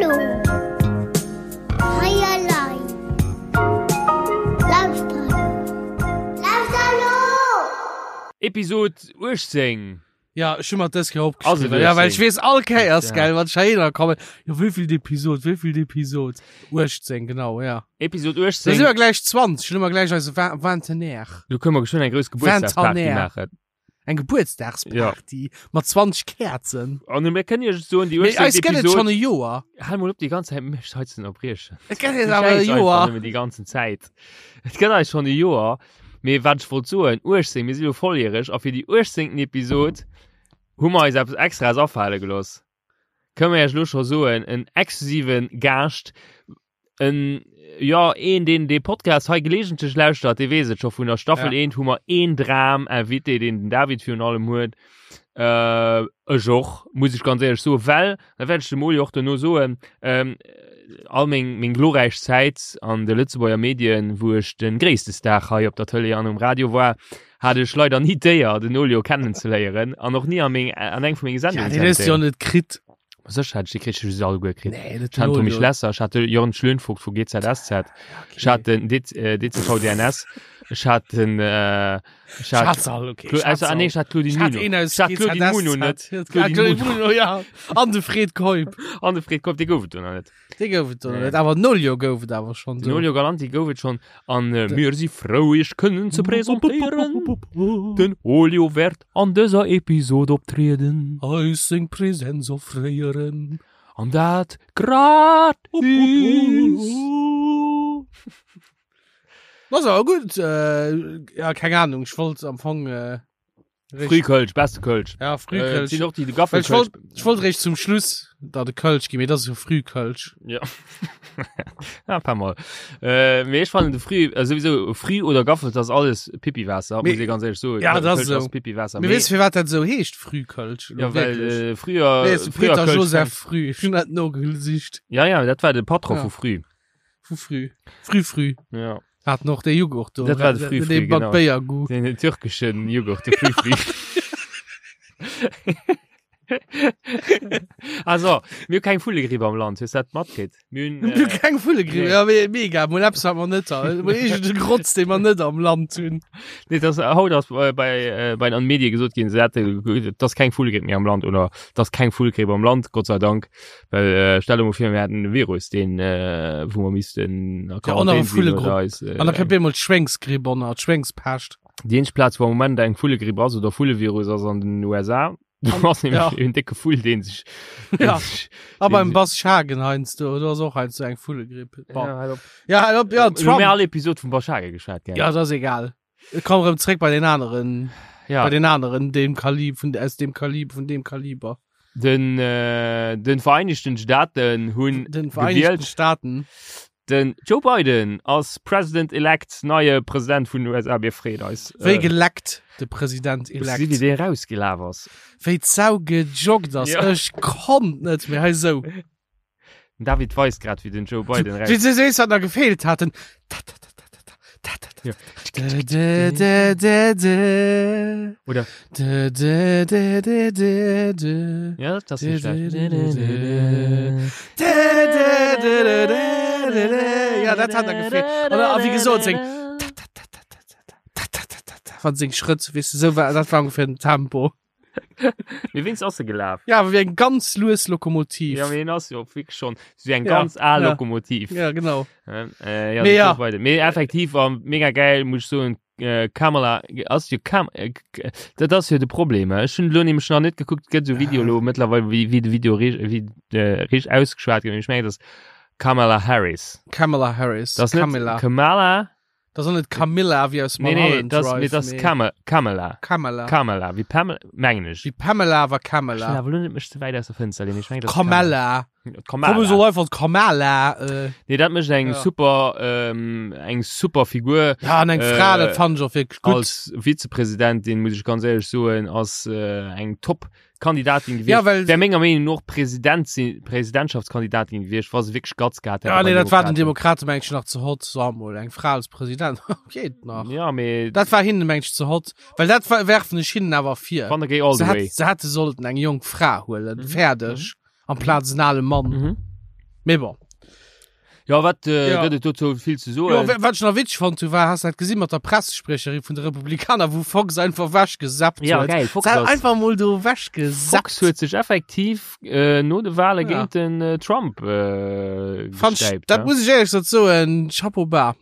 Hallo. Hei elei. Lauschter elo. Lauschter elo! Episod 18. Ja, ech hu mer dës Kéier Ass et opgeschriwwen. Ja, well ech 18? weess all Kéiers, Ja. gell, wann ech heihinner kommen, jo, wéivill Episod, wéivill Episod? 18, genau, ja. Episod Da 18. si mer gläich 20, dann hu mer gläich eise Vin- Vintenaire. Do kënne mer geschwënn eng grouss Gebuertsdagsparty Vintenaire. maachen. Eng Gebuertsdagsparty mat 20 Käerzen. An mir kënnen iech soen, déi Mee 18. eis gëtt et Episod. schonn e Joer. Hal mol op déi ganz Zäit mech hei ze ënnerbriechen. Et gëtt eis Du awer e schäiss einfach Joer. nëmmen déi ganzen Zäit. Et gëtt eis schonn e Joer. Mee wat ech wollt soen, 18, mir si lo volljäreg a fir déi 18. Episod hu mer eis eppes Extraes afale gelooss. Kënne mer iech lo scho soen, en exklusive Gaascht, en, jo, een, deen dee Podcast hei gelegentlech lauschtert, dee weess et scho, vun der Staffel Ja. 1 hu mer een Dram-Invité, deen den David virun allem huet, äh, ech och, muss ech ganz éierlech soen, well, dat wäert ech dem Oli och dono soen, ähm, all meng, meng glorräich Zäit an de Lëtzebuerger Medien, wou ech de gréisste Star hei op der Tëlee an um Radio war, hat ech leider ni d'Éier, den Olio kennenzeléieren an och ni an, meng, an eng vu menge Ja, Sendungen den hues du jo net kritt. Sécher hat ech déi kritt, ech hu se alleguer kritt. Nee, net Ech hat den Tommy Olio. Schlesser, ech hat de Jörn Schlönvogt vu GZSZ, ech hat den D äh, DCVDNS, ech hat den äh, ech hat Schatz all, okay. Cla also, ah, nee, ech hat Claudine Ich hat Muno. een aus Ech hat Claudine Muno net. Ja, Claudine Claudine Muno. Muno, ja. An de Fred Keup. An de Fred Keup, dee gouf et do nach net. Dee gouf et do Nee. net. Awer den Olio gouf et awer schonn Den do. Olio Galanti gouf et schonn. An äh, mir si frou, iech kënnen ze presentéieren. Den Olio wäert an dëser Episod optrieden. Eis seng Präsenz offréieren. An dat gratis. Ass awer gutt. Äh, ja, keng Ahnung. Ech wollt am Fong. Äh, Frühkölsch, beste Kölsch. Ja, Äh, Frühkölsch. sinn och déi de Well ech Gaffelkölsch. wollt, ech wollt réischt zum Schluss da de Kölsch ginn, mee dat ass jo Frühkölsch. Ja. ja, paar Mal. Äh, mee ech fannen de Früh, äh, sowieso Früh oder Gaffel, das ass alles Pipiwaasser, Mee- muss ich ganz ehrlich soen. Ja, das Kölsch ass ass so. Pipiwaasser. Mee weess du, firwat dat esou heescht, Frühkölsch? ja, well Wirklich? äh, früher, Nee, ist früher Peter Kölsch Joseph Früh. Ich hun dat nogesicht. Ja, ja, dat war de Patron Ja. vu Früh. Vu Früh. Früh, früh. Ja. Hat noch de Joghurt do. Dat war de Früh, früh, Den mat genau. Béiergoût. Den türkischen Joghurt, de Früh, früh. Also, mir hu keng Vullegripp am Land, hues du dat matkritt? Mir hunn, Mir hu äh, keng Vullegripp. nee. Ja, me mega. Mol eppes, wat mer net ha. Mol iergend e Grotz, dee mer net am Land hunn. Nee, das, haut ass bei, bei, äh, bei den Medie gesot ginn, se hätte, dass keng Vullegripp méi am Land oder dass keng Vullegripp am Land, Gott sei Dank. Well äh, stell dir mal vir, mir hätten e Virus, deen, äh, wou mer missten a Ja, Quarantän ënner sinn Vullegrupp. oder eis, äh, An da kënnt bemol d'Schwéngsgripp ënner, d'Schwéngspescht. Déi eenzeg Plaz, wou am Moment eng Vullegripp ass oder Vullevirus ass an den USA. Do ass nämlech Ja. en décke Vull, deen sech. deen Ja. sech- A beim deen Bas Schagen heiansdo, do ass och heiansdo eng Vullegripp. sech- Bon. Ja, halt op. Ja, halt op, ja, Mir hu Trump. all Episod vum Bas Schagen geschwat, gell? Ja, dat ass egal. Ich komm erëm zréck bei den aneren, Ja. bei den aneren, dem Kalib, vun, aus dem Kalib, vun dem Kaliber. Den, äh, den Vereinigten Staaten hunn Den Vereinigten gewielt. Staaten. Den Joe Biden ass President-elect, neie President vun den USA. Mir freeën eis. Wéi Äh, geleckt, de President-elect. Wéi dee rausgelaf ass. Wéi d'Sau gejoggt ass. Ja. Ech konnt net méi. Hei sou. Den David weist grad, wéi den Joe Biden raus. Wéi se sees, wat nach gefeelt hat. Den ta ta ta ta ta ta ta ta Ja. ta ta ta ta ta Oder? ta ta ta ta ta ta Ja, das ist nicht schlecht. Ja, dat hat er gefeelt. Oder, a wéi gesot, seng ta ta ta ta ta ta ta ta ta ta wann seng Schrëtt, weess du, sou war, dat war ungefähr den Tempo. Mee wéinst ass e gelaf? Ja, awer wéi eng ganz lues Lokomotiv. Ja, mee en ass jo wierklech schonn sou eng Ja, ganz al ja. Lokomotiv. Ja, genau. Äh, ja, Mee ja. ja. Mee effektiv war mega geil, muss ich soen, äh, Kamala ass jo Kam äh, k- dat ass jo de Problem. Ech hunn lo nämlech nach net gekuckt, gëtt sou Video lo mëttlerweil wéi wéi de Video richt wéi äh, richt ausgeschwat gëtt. Ech mengen, dat ass Kamala Harris. Kamala Harris. Dat ass net Kamala. Kamala. Das ass net Camilla wéi aus Nee, nee, Mulholland das, Drive. nee, das mee Kama, Kamala. Kamala. Kamala, wie Pamela, mengen ech. Wéi Pamela awer Ech will Kamala. awer lo net mech ze wäit aus der Fënster lehnen. Ech mengen, das ist Kamala. Kamala. Komm so einfach Kamala. Äh, Nee, dat mécht eng Ja. super, ähm, eng super Figur. ja, an eng Äh, Fra, dat fand ich och wirklich gut. Als Vizepräsidentin, muss ich ganz ehrlich soen, ass äh, eng top Kandidatin gewiescht. Ja, well- Wär menger Meenung no och President sinn, Presidentschaftskandidatin gewiescht, wa se wierklech Guts gehat hätt. Ja, bei nee, dat war den Demokraten. Demokraten mengt nach ze hot. So, mol eng Fra als President. Geht nach. Ja, mee Dat war hinnen mengt ze hot. Well dat war, werfen ech hinnen awer vir. wann der géi all Se the way. hätt, se hätte sollten eng jonk Fra huelen. Mhm. Fäerdeg. Amplaz en ale Mann. Mhm. Mee bon. Ja, wat äh, Ja. gëtt et dozou vill ze soen? Jo, wa- wat ech nach witzeg fonnt hu, war, has du dat gesinn mat der Pressespriecherin vun de Republikaner, wou Fox einfach wechgesappt Ja, huet? geil, Fox Se hat ass- einfach mol do wechgesappt. Fox huet sech effektiv äh, no de Wale Ja. géint den äh, Trump äh, Fand ich, gestäipt. dat ne? muss ich ehrlich gesagt soen, Chapeau bas.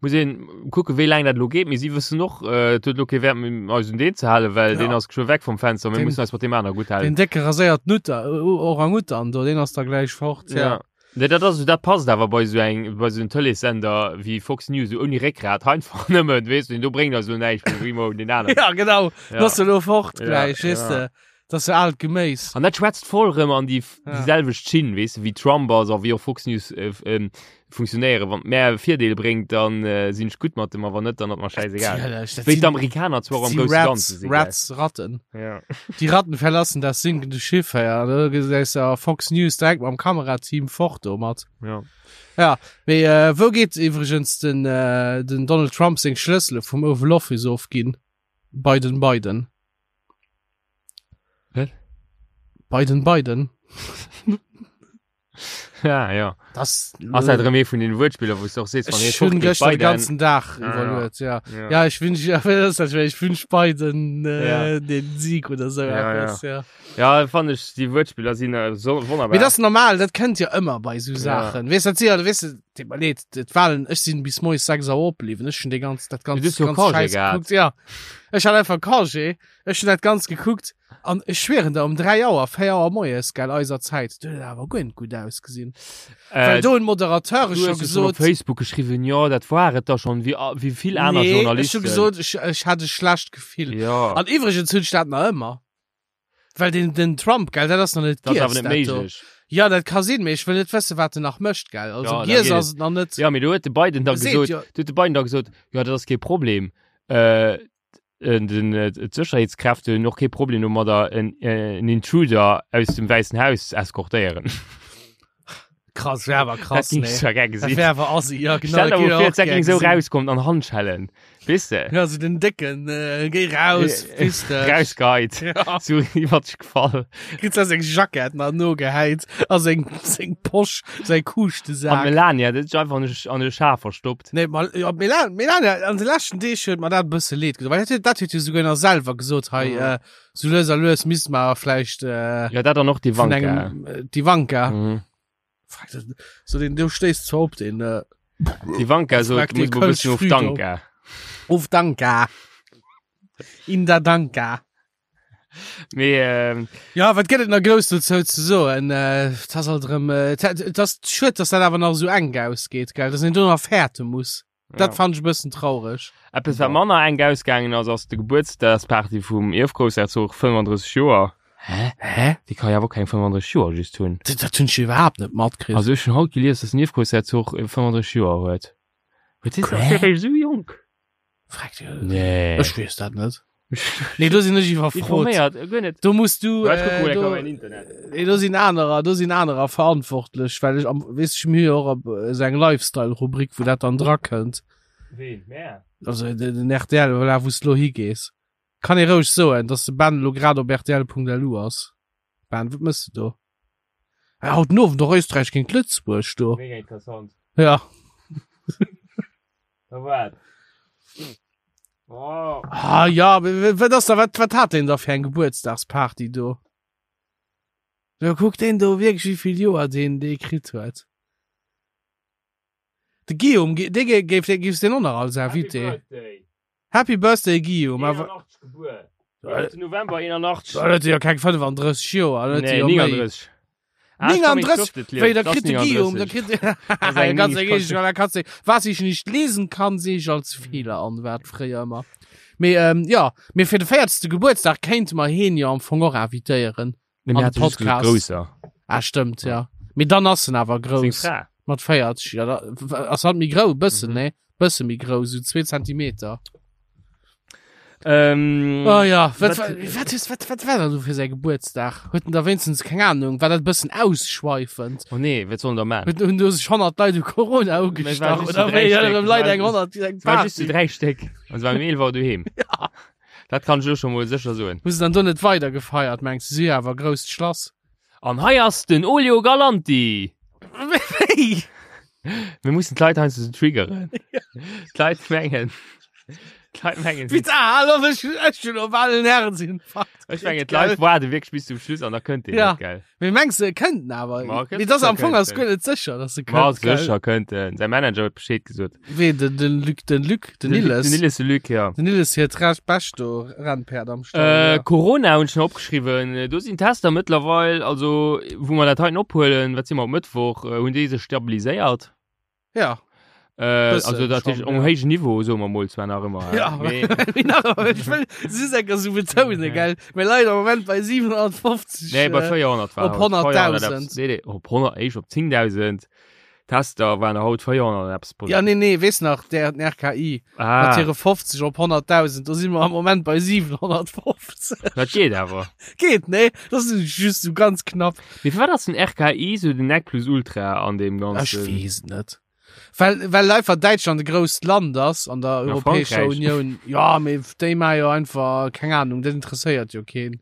Muss een kucken, wéi laang dat elo geet, mee si wëssen och, äh, et huet elo kee Wäert méi, eis un deen ze halen, well Ja. deen ass geschwë weg vum Fenster, mir Den- mussen eis mat deem aner gutt halen. Den décke raséiert Nutter, Orang-Utan do, deen ass da gläich fort. Ja. Ja. Nee, dat ass, dat passt awer bei sou eng, bei sou en Tëleessender wéi Fox News, sou ouni Réckgrat, einfach nëmmen, weess du, deen do bréngt eis elo näischt, mir brénge mol deen aneren. Ja, genau. Ja. Ja. Ass elo fort Ja, gläich, weess ja. de. Dat ass jo aalt Geméis. An dat schwätzt voll rëm an déi, Ja. déi selwecht Schinn, weess de, wéi Trump ass a wéi och Fox News äh, ähm, funktionéieren. Wann et mär e Virdeel bréngt, dann äh, sinn ech gutt mat dem, a wann net, dann ass mer schäisegal. Natierlech, dat Wéi sinn- d'Amerikaner zwar am si grousse Rats, Ganze sinn. gell? Rats, Ratten. Ja. Die Ratten verlassen das sinkende Schiff, ja. Da gesäis du Fox News direkt mam Kamerateam fort domat. Ja. Ja, mee äh, wou geet iwwregens den, äh, den Donald Trump seng Schlëssele vum Oval Office ofginn? Bei den Biden. Wat? Biden, Biden. Ja, ja. Das Ass dat erëm ee vun den Wuertspiller, wou s du och sees, wann ee Ech hunn fort geet, gëschter de Biden. ganzen Dag Ah, ja. iwwerluet, ja. Ja. Ja, ich wünsch, ja, das ist, ich wünsch Biden äh, Ja. den Sieg oder so Ja, etwas, ja. Ja, fand ech, déi Wuertspiller sinn äh, so wonnerbar. Mee das ist normal, dat kënnt jo ëmmer bei sou Ja. Saachen. Weess dat si, weess du, deet mer leed, d'Wahlen, ech sinn bis moies 6 Auer opbliwwen, ech hunn dee ganz, dat ganz, Du hues jo ganz Congé Scheiß gehat. gekuckt, ja. Ech hat einfach Congé, ech hunn dat ganz gekuckt an ech schwieren der, um 3 Auer, 4 Auer moies, gell, eiser Zäit, do huet et awer guer net gutt ausgesinn. Well äh, do hunn d'Moderateure du scho hues jo schon op gesot, Facebook geschriwwen, jo, dat war et da schon, wéi, wéi vill aner nee, ech Journalisten. hu gesot, ech, ech hat e schlecht Gefill. Ja, An iwwregens hunn ech dat nach ëmmer. Well den, den Trump, gell, dat ass nach net dat ass giess, awer net dat do. méiglech. Ja, dat ka sinn, mee ech wëll net wëssen, wat en nach mécht, gell. Also Ja, da giess geet ass et nach net. Ja, mee do huet de Biden da Seet gesot, jo. do huet de Biden da gesot, jo, dat ass kee Problem. Äh, den, äh, d'Sécherheetskräfte hunn och kee Problem domadder, en, äh, en Intruder aus dem Wäissen Haus ze eskortéieren. Krass, wär awer krass, Dat ging nee. zwar gär Dat gesinn. wär awer assi, ja, genau. Stell dat dir géif mal ich vor, och dat gär ging so gesinn. rauskommt an Handschellen. Weess de? Ja, so den Décken, äh, géi raus, fiss dech. Rausgeheit. Ja. So iwwer dech gefall. Kritt se seng Jackett nach nogehäit a seng, seng Posch, säi An Kuuschtesak. Melania, dat huet sech einfach an e, an e Schaf verstoppt. Nee, mal, ja, Melania, Melania, an de leschten Deeg huet mer dat e bësse leed gedoen, well dat huet, dat huet jo souguer nach selwer gesot, hei, Mhm. äh, so lues a lues misst mer vläicht, äh, Ja, dat an och vun d'Ivanka. engem, äh, d'Ivanka. Mhm. Frag das, so den, du stéisst zwar op den, äh, D'Ivanka sot, Frag muss den mer e bëssen Kölsch of früh Danka. Of Danka. In der Danka. Mee, ähm, Ja, wat gëtt et nach grouss dozou ze soen? Äh, et ass alt erëm, äh, et et ass schued, dass dat awer nach esou enk ausgeet, gell, dass een do nach fäerte muss. Dat ja. fand ech e bëssen traureg. Eppes, wat manner enk ausgaangen ass, ass de Gebuertsdagsparty vum Ierfgroussherzog, 35 Joer. Hä? Hä? Dee ka jo awer och keng 35 Joer just hunn. Dat, dat hunn ech iwwerhaapt net matkritt. Also ech hunn haut gelies, dass den Ierfgroussherzog 35 Joer huet. Huet dee Quä? ass dee réischt esou jonk? Frag dir. Nee. Ech weess dat net. Nee, do sinn ech iwwerfrot. Informéiert, äh, guer net. Do muss du, Ja, ech kucke äh, mol eng do, Kéier am Internet. nee, do sinn anerer, do sinn anerer verantwortlech, well ech am, weess ech, mir hu jo och op esou eng Lifestyle-Rubrik, wou dat dann drakënnt. Ween? Mär? Also den, den RTL, voilà, wou s du lo higees. Kann ee roueg soen, dass de Ben lo grad op rtl.lu ass. Ben, wat mëss du do? Ah, haut den Owend och Österreich géint Lëtzebuerg do. Mega interessant. Ja. Da wat? Oh. Ah ja, wat ass da, wat, wat hat deen da fir eng Gebuertsdagsparty do? Jo, kuck deen do wierklech, wéi vill Joer deen dee kritt huet. De Guillaume, dee géif, dee géifs deen och nach als Invité. Birthday. Happy Birthday Guillaume, awer 81 gebuer. 11. November 81. Da huet e jo keng 35 Joer, da huet e Nee, jo méi. 39. Ah, ich kann mich 39? schriftlich lesen. Wéi, da Das kritt de Guillaume, da 39. kritt Das ist eng ganz Mies- egal, da kannst du, was ich nicht lesen kann, sehe ich als Fehler an, war fréier ëmmer. Mee, ähm, ja, mee fir de 40. Gebuertsdag kéinte mer heen jo am Fong och invitéieren. Nee, An mir de hat just Podcast. Grousser. Ah, stëmmt, ja. Mee dann ass en awer Seng grouss. Fra. Mat 40, ja, da ass halt méi grou, bëssen, Mhm. ne? Bësse méi grou, sou 2 Zentimeter. Ähm, Oh ja, wat, wat- wat, wat, is, wat, wat war dat do fir säi Gebuertsdag? Huet en da wéinstens, keng Ahnung, war dat e bëssen ausschweifend? Oh nee, wat soll en da man? Huet, hunn do sech 100 Leit u Corona Mä ugestach? war just Oder zu wéi? dräi Ja, Stéck. erëm Leit War eng just- 100, eng Es war just zu Party. dräi Stéck. An se waren um 11 Auer doheem. Ja. Dat kann ech elo scho mol sécher soen. Hu se dann do net weider gefeiert, mengs du? Si hu jo awer e grousst Schlass. An hei ass den Olio Galanti! Wéi? Mir mussen d'Leit heiansdo sou triggeren. D'Leit mengen, d'Leit mengen, Wéi ah, hallo, ech, ech hunn op allen Herzinfarkt. ech mengen, d'Leit waarde wierklech bis zum Schluss an da kënnt deen Ja. net, gell? Mee mengs du, e kënnt en awer? Ma, Mee das am kënnt Fong ass en. guer net sécher, dass e Ma kënnt. gell? sécher kënnt en. Säi Manager huet Bescheed gesot. Wee, den, den Luc, den Luc, den Nilles. Den Nilles, de Luc, ja. Den Nilles hiert recht bescht do Rennpäerd am Stall. Äh, ja. Corona hunn ech nach opgeschriwwen. Do sinn Tester mëttlerweil, also wou mer dat heiten ophuelen, wat si mer op Mëttwoch, äh, hunn déi sech stabiliséiert. Ja. Äh, Bëssen also dat schon, um ja. héijen Niveau soe mer mol zwar nach ëmmer. Ja, mee, mee nach ëmmer, ech wëll just enker so betounen, gell? Mir leien am Moment bei 750. nee, bei äh, 400 war op haut. 400 100.000. eppes. Nee, nee, op 100, éischt op 10.000 Tester waren haut 400 eppes. Ja, nee, nee, weess nach, der den RKI ah, mat hire 50 op 100.000, do si mer am Moment bei 750. dat geet awer. Geet, nee? Das ist just so ganz knapp. Mee firwat ass den RKI sou den Nec plus Ultra an deem Ech ganzen? weess et net. Well, well einfach Däitschland e grousst Land ass an der Ja, Europäescher Frankräich. Unioun. Ja, mee déi maache jo einfach, keng Ahnung, dat interesséiert jo keen.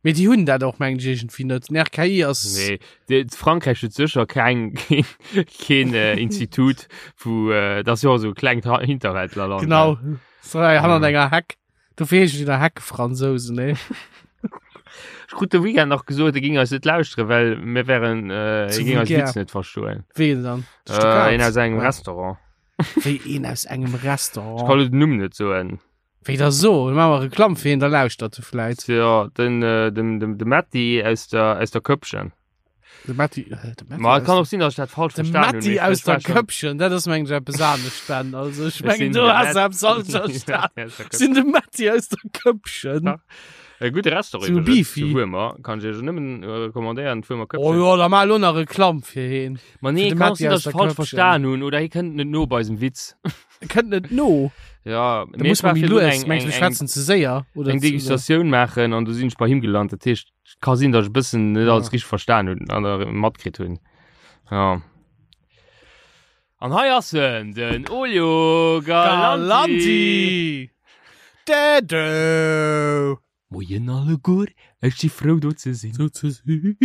Mee déi hunn dat och, mengen ech, iergendwéi net. Den RKI ass. Nee, de, Frankräich huet sécher keng, keen, keen äh, Institut, wou, äh, dat ass jo och esou e klengt Ha- Hinterwäldlerland. Genau. So, hei hannert Ja. enger Heck. Dofir heeschen déi da Heckefransousen, nee? Ech krut de Weekend nach gesot, e ging eis net lauschteren, well mir wären, äh, Zu e ging eis vulgär. Witz net verstoen. Ween dann? De Äh, Stuttgart? een aus engem Ja. Restaurant. Wéi een aus engem Ech Restaurant? kann lo den Numm net soen. Wéi da so? Dann maache mer Reklamm fir hien, da lauschtert e vläit. Ja, den, äh, den, den, de Matti aus der, aus der Köppchen. De Matti, äh, de Matti Ma et aus kann der- och sinn, dass ich dat falsch De verstanen hunn. Matti mee aus ech war der schon- Köppchen, dat ass mengen ech eppes anescht, Ben. Also ech Ech mengen, sinn du de has Matt- eppes falsch verstan. Ja, aus der Ech sinn de Matti aus der Köppchen. Ja. E gudde Restaurant Zu iwwregens, Beefy. zu Wuermer. Kann ich iech nëmmen äh, recommandéieren, d'Wuermer Oh Köppchen. jo, da maach elo nach Reklamm fir heen. Ma nee, Fir de kann Matti sinn, dass aus ich der falsch Köppchen. verstan hunn oder hie kënnt net no bei eisem Witz. E kënnt net no. Ja, Da muss man méi lues. Mengs du, wir schwätzen ze séier? Oder eng zu- Degustatioun maachen an du sinn ech bei him gelant. Dat heescht, et ka sinn, dass ech e bëssen net Ja. alles richtig verstan hunn an der matkritt hunn. Ja. An hei ass en, den Olio Galanti. Galanti! Dädö! Moien alleguer, ech si frou do ze sinn. Do ze sinn.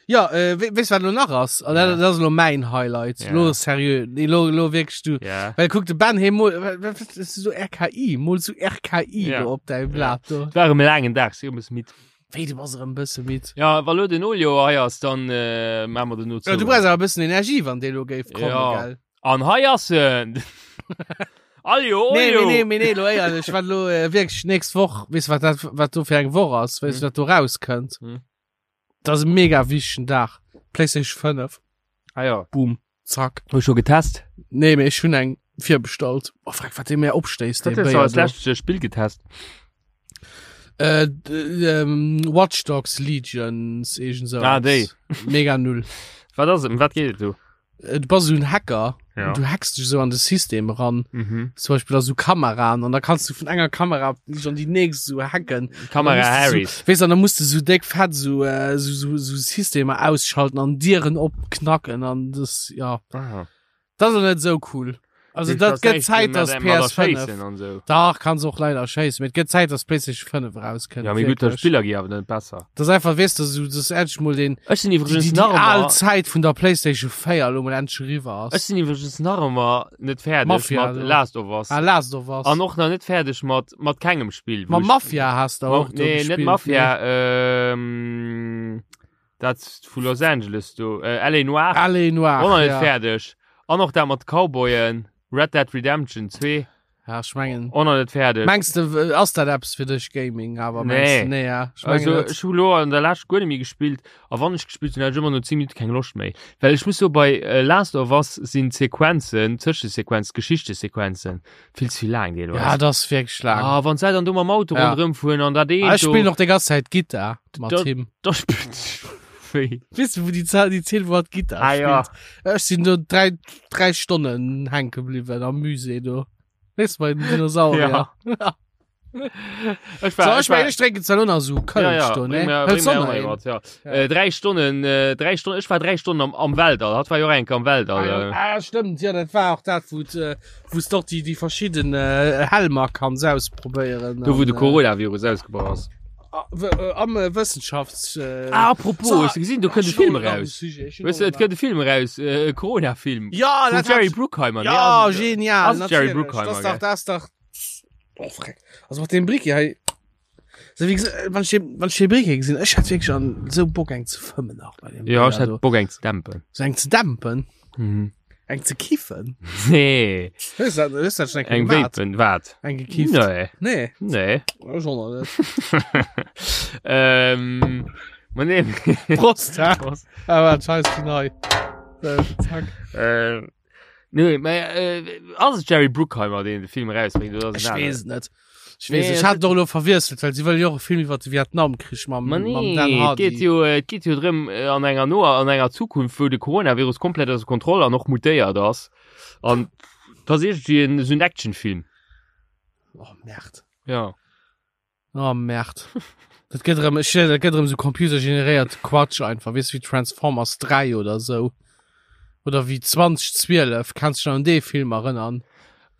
Ja, äh, we weess wat lo nach ass? An dat, Ja. dat ass lo mäin Highlight. Ja. Lo seriö, nee, lo, lo wierklech du. Ja. Well kuck de Ben hee mol, wat wat ist so RKI, mol so RKI Ja. do op däi Blat do. Et war erëm e laangen Dag, si erëm e bësse midd. Wéi, du bass erëm e bësse midd. Ja, wa lo den Olio hei ass, dann äh, maache mer den no Ja, du brauchs awer e bëssen Energie, wann dee lo géif kommen, Ja. gell? An hei ass en! Aljo, Nee, Olio! nee, nee, mee nee, lo éierlech, wat lo äh, wierklech nächst Woch, weess wat dat, wat do fir eng Woch ass, weess Hm. du wat do rauskënnt? Hm. Dat ass e mega wichtegen Dag. PlayStation 5, Ah ja. boom, zack. Hues scho getest? Nee, mee ech hunn eng virbestallt. Oh, frag, wat dee mir opstéisst, dee Wat hues du Béier als do. lescht Spill getest? Äh, d- ähm, Watch Dogs Legions, irgend so. Ah, déi. Mega null. Wat ass et? Ëm wat geet et do? Äh, Du bass so ein Hacker. Ja. Und du hackst dich so an de System ran. Mhm. Zum Beispiel da so Kameraen. Und da kannst du vun enger Kamera dich an die nächst so hacken. Kamera Dann musst du Harrys. So, weißt du, dann musst du so dick fett so, äh, so, so, so Systeme ausschalten an Dieren opknacken. An das, ja. Aha. Das ist net so cool. Also dat gëtt Zäit, dass PS5 an so. Dach kannst och leider schéissen. Mee et gëtt Zäit, dass PlayStation 5 rauskënnt. Ja, mee gutt, Wierklech. Spiller gi awer net besser. Das ist einfach, weißt du, so, das ist endlich mal den, Ech sinn die, iwwregens die, die nach al ëmmer Zäit vun der PlayStation 4 lo mal endlich eriwwer Ech ass. sinn iwwregens nach ëmmer net fäerdeg Mafia, mat do. Last of Us. Ah, Last of Us. An och nach net fäerdeg mat mat kengem Spill. wou Ma ech- Mafia hast du Ma, och do nee, net gespielt, Mafia, ähm, dat vu Los Angeles do, äh, LA Noire. Ne? Allez Noir. Och nach net ja. fäerdeg. An och dat mat Cowboyen, Red Dead Redemption 2, Ja, ich mengen. och nach net fäerdeg. Mengst du, äh, ass dat eppes fir dech Gaming, awer Nee. mengst du, nee, ja. Ich mengen Also net. ech hu lo an der Lescht guer net méi gespillt a wann ech gespillt hunn, hat ech ëmmer no 10 Minutte keng Loscht méi. Well ech muss soe bei äh, Last of Us sinn d'Sequenzen, d'Zëschesequenz, d'Geschichtesequenzen vill ze vill laang deelweis. Ja, das ist wirklich lang. Ah, wann se dann do mam Auto Ja. ronderëm fueren an dat Ah, eent ich do, spiel noch die ganze Zeit Gitarre mat Da- him. da spillt wéi. Weißt du, wo die, Zahl, die Zähl, wo hat Gitarre Ah, ja. spielt? Ich sind nur drei, drei Stunden hängen geblieben am Musée, du. Weißt du, bei den Dinosaurier. Ja. Ja. Ech war, So, ich war, meine, ich trinke jetzt noch so Kölsch, ja, ja, du, bring ne? mir, Hëls bring mir du auch noch mal een? wat, ja. Ja. Äh, drei Stunden, äh, drei Stunden, ich war drei Stunden am, am Weltall, hat war jo enk am Weltall. Ah, ja. Äh. ah, stimmt, ja, das war auch das, wo äh, wo doch die, die verschiedenen äh, Helmer kannst ausprobieren. Do wou An, de äh, Coronavirus ausgebrach ass. Am äh, Wëssenschafts. Äh, Ah, apropos, So, hues du gesinn, do kënnt e Film eraus. Weißt du, et kënnt e Film eraus, äh, e Corona-Film. Ja, Vum dat Jerry hat- Bruckheimer. nee, Ja, ass et- genial. ass et Jerry natierlech. Bruckheimer, Das dach, gell? das dach. Oh, freck. Also mat dem Bricky hei. So, wie gesagt, wann ich den, wann ich den Bricky gesinn, ech hat wirklich an so Bock eng ze fëmmen nach bei dem. Ja, ech Bricky do. hätt Bock eng ze dämpen. So eng ze dämpen, Mhm. eng ze kiffen. Nee, Hues dat, hues dat schon eng eng gemaat? Vapen, wat? Eng gekifft? Nee, Nee. nee. Ech och nach net. ähm, ma nee. Prost, hä? Prost. Ah, wat, scheiß die nei. So, zack. Äh, nee, mä, äh, ass et Jerry Bruckheimer, deen de Film erausbréngt, oder ass et Ech en weess aneren? et net. Ech Nee, weess, ech et hat et och elo verwiesselt, well si wëll jo och e Film iwwer de Vietnamkrich mam, Ma mam nee, Dan et Hardy. geet jo, et geet jo drëm, äh, an enger noer, an enger Zukunft, wou de Coronavirus komplett ausser Kontroll an och mutéiert ass. An dat ass iergendwéi en, esou en Actionfilm. Oh, Merde. Ja. Oh, Merde. Dat gëtt erëm, ech, dat gëtt erëm esou computergeneréiert Quatsch einfach, weess wéi Transformers 3 oder esou. Oder wéi 2012, kanns du dech nach un dee Film erënnern?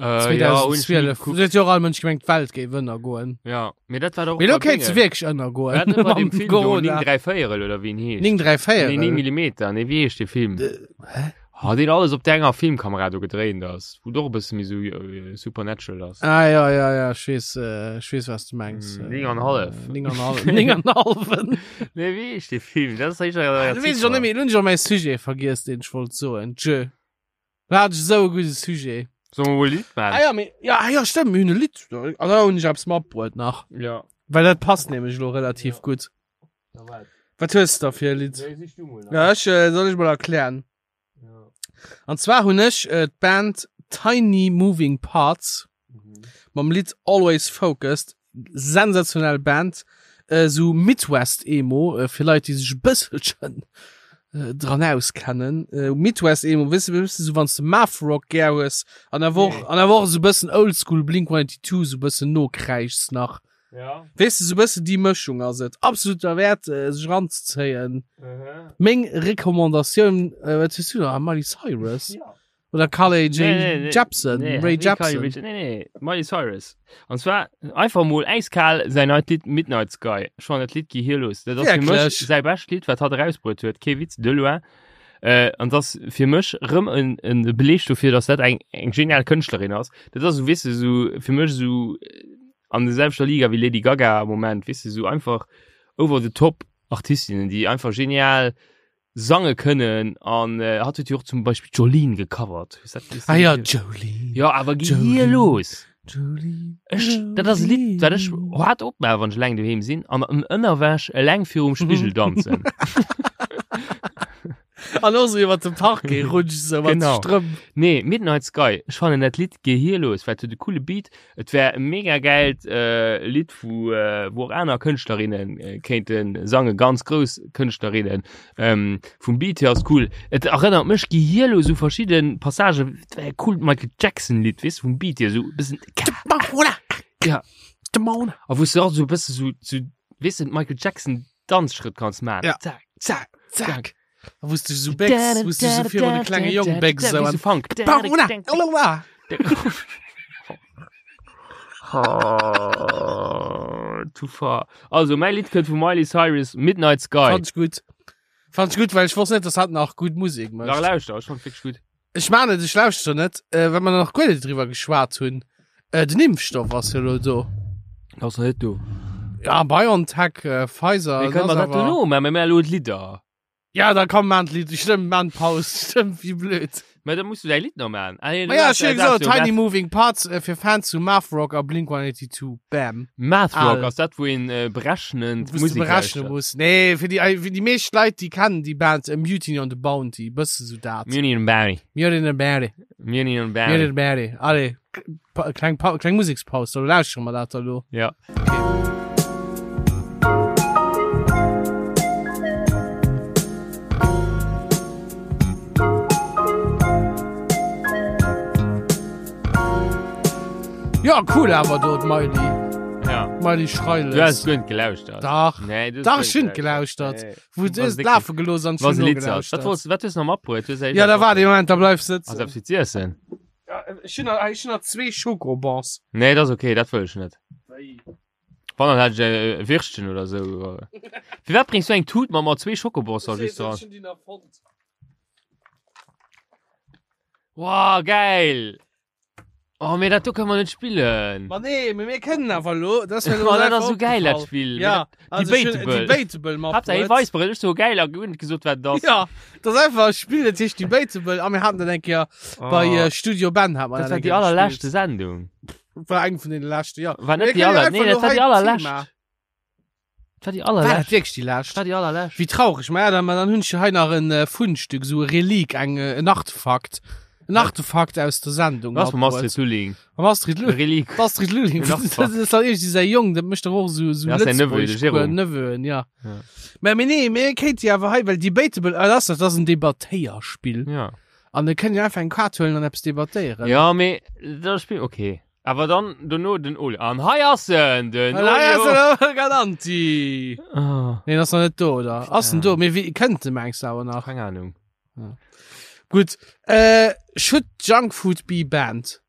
Äh, ja, hunn ech nie 2012. gekuckt. Do huet jo och all Mënsch gemengt, d'Welt géif ënnergoen. Ja, mee dat war doch Mee lo bei kéint se Dinge. wierklech ënnergoen. War dat net bei dem Mam Film do, Corona. 9 3 Véierel oder wéi en heescht? 9 3 Nee, 9 Véierel. Millimeter, nee, wéi heescht dee Film? Hä? Ah, deen alles op der enger Filmkamera do gedréint ass, wou et och e bësse méi sou äh, supernatural ass. Ah, ja, ja, ja, ech weess, äh, ech weess, was du mengs. Mm, 9 an hallef. 9 an hallef. 9 an halfen. Nee, wéi heescht dee Film? Dat ass éischter Ah, du weess ech och net méi, lo hunn ech och mäi Sujet vergiess, deen ech wollt soen. Tjö. Da hat ech esou e gudde Sujet. Solle mer mol e Lidd maachen? Ah ja, mee, ja, ah ja, stëmmt, mir hunn e Lidd. Ah, da hunn ech eppes matbruet nach. Ja. Well dat passt nämlech elo relativ Ja. gutt. Na wat? Wat hues du da fir e Lidd? Nee, sich du mol. Ja, ech, äh, soll ech mol erklären. Ja. An zwar hunn ech äh, d'Band Tiny Moving Parts Mhm. mam Lidd Always Focused. Sensationell Band. Äh, sou Midwest Emo, äh, fir Leit, déi sech e bësselchen äh, dran auskennen. Äh, Midwest Emo, wësse wësse sou wanns de Math Rock gär hues an awer och Nee. an awer och sou bëssen Oldschool Blink 182 sou bëssen nokräischs nach. Ja. Weess de, sou bëssen déi Mëschung ass et. Absolut derwäert äh, sech ranzezéien. Mhm. Meng Recommandatioun, äh, wat hues du da? Miley Cyrus? Ja. Oder Carly J. Nee, nee, nee. Jepsen, Nee, Ray nee, Carly Jepsen. Rae Je- Nee, nee, Miley Cyrus. An zwar einfach mol eiskal säin neit Lidd Midnight Sky. Ech fannen dat Lidd gehirlos. Dat ass fir mech Wierklech? säi bescht Lidd, wat hatt erausbruet huet. Kee Witz, de loin. Äh, an dat ass fir mech rëm en, en Beleg dofir, dass dat eng, eng genial Kënschtlerin ass. Dat ass, weess de, sou, fir mech sou äh, an der selwechter Liga wéi Lady Gaga am Moment, weess de, sou einfach over the top Artistinnen, déi einfach genial sange kënnen an äh, hat huet jo och zum Beispill Jolene gecovert. Hues dat gesinn? Ah ja, Jolene. Ja, awer geh Jolene. hier los. Jolene. Ech, dat ass e Lidd, dat ech hart opmaachen, wann ech eleng doheem sinn an an Ënnerwäsch eleng virum Spigel danzen. An och so iwwer de Parquet rutsch so mat Genau. Strëmp. Nee, Midnight Sky, ech fannen dat Lidd gehirlos, well et huet e coole Beat, Et wär e mega geilt äh, Lidd, wou, äh, wou och aner Kënschtlerinnen äh, kéinte sangen, ganz grouss Kënschtlerinnen. Ähm, vum Beat hier ass cool. Et erënnert mech gehirlos u verschidde Passagen. Et wär e coolt Michael Jackson Lidd, weess du, vum Beat hier, sou e bëssen Ja. A wou s du och sou e bësse sou, sou, weess du, Michael Jackson Danzschrëtt kanns maachen. Ja. Zack, Zack, zack. zack. Wou s du so bécks, wou s du so virun de klenge Jong bécks Wéi sou sou Funk. Oh, too far. Also, mäi Lidd kënnt vu Miley Cyrus, Midnight Sky. Fand ech gutt. Fand ech gutt, well ech wosst net, dass hatt nach gutt Musek Nach mécht. lauschter, ech fand wierklech gutt. Ech man et, ech lauschter net, äh, well mer nach guer net driwwer geschwat hunn. Äh, den Impfstoff ass jo lo do. Ass nach net do. Ja, BioNTech, äh, Pfizer. Mir kënnen ass mer dat awer- dono maachen, mir maachen elo d'Lidder. Ja, da komm man d'Lidd, stëmmt, man Paus, stëmmt, wéi blöd. Mä da muss du däi Lidd nach maachen. Ah, nee, Ma du ja, hast- ech hu du hast gesot, jo Tiny Math- Moving Parts äh, fir Fans zu Math Rock a Blink 182. Bam. Math Rock, Al. ass dat, wou een äh, berechnend Wou du Musek berechne lauschtert? muss. Nee, fir déi, fir déi meescht Leit, déi kennen déi Band äh, Mutiny on the Bounty, bësse sou dat. Mutiny on the Bounty. Mutiny on the Bounty. Mutiny on the Mutiny Bounty. on the Bounty. Allez, pa kleng, pa kleng Musekspaus, da lauschtere mer dat da lo. Ja. Ja, cool awer do, d'Miley. Ja. Miley Du hast Schreiles. guer net gelauschtert. Dach. Nee, du hast Dach, guer ech hunn net gelauschtert. Nee. Wou du Was es dick- lafe gelooss an Was ech hunn Lied ass. Wat nogelauschtert. wolltest, wat hues du nach matbruet? Du hues Ja, da war de Moment, da bleif Ass sëtzen. eppes fir z'iessen? Ja, ech hunn nach, ech hunn nach zwee Schokobons. Nee, dat ass okay, dat wëll ech net. Wann dann hätt ech e Würstchen oder sou. Firwat bréngs du eng Tut mat mat zwee Schokobosser just dran? Wow, geil! Oh, mee dat do kënne mer net spillen. Ma nee, mee mir kënnen awer elo. Dat ass mir elo dat ass sou geil, dat Spill. Ja, also Debatable. Debatable mat. Haaptsaach hie weist mer et, ech so geil a guer net gesot wat et ass. Ja, dat ass einfach e Spill, dat heescht Debatable a mir haten dat eng Kéier oh. bei äh, Studio Ben hat mer dat war déi allerleschte Sendung. War eng vun den leschte, ja. War net déi aller, nee, dat war déi allerlescht. Dat war déi allerlescht. War dat wierklech déi lescht? Dat war déi allerlescht. Wéi traureg. Ma ja, dann, dann hunn ech hei nach en äh, Fundstück, so e Relik, eng, äh, en Artefakt. En Artefakt aus der Sendung. Was mam Astrid Lulling? Mam Astrid Lulling. Relik. Astrid Lulling. En Artefakt. Das ist halt irgendwie säi Jong, dat mécht doch och so, so Ja, säin Neveu, de Jérôme. Neveu, ja. Ja. Mä, mee nee, mir kéint jo awer hei, well Debatable, ah, das, das ass en Debattéierspill. Ja. An da kënnt jo einfach eng Kaart huelen an eppes debattéieren. Ja, mee dat Spill, okay. Awer dann dono den Olio. An hei ass en, den An hei ass Olio. en, Olio Galanti. Ah, Nee, ass nach net do, oder? Ass en do? Mee wéi kënnt de mengs du awer nach? keng Ahnung. Gutt. Äh, should junk food be banned?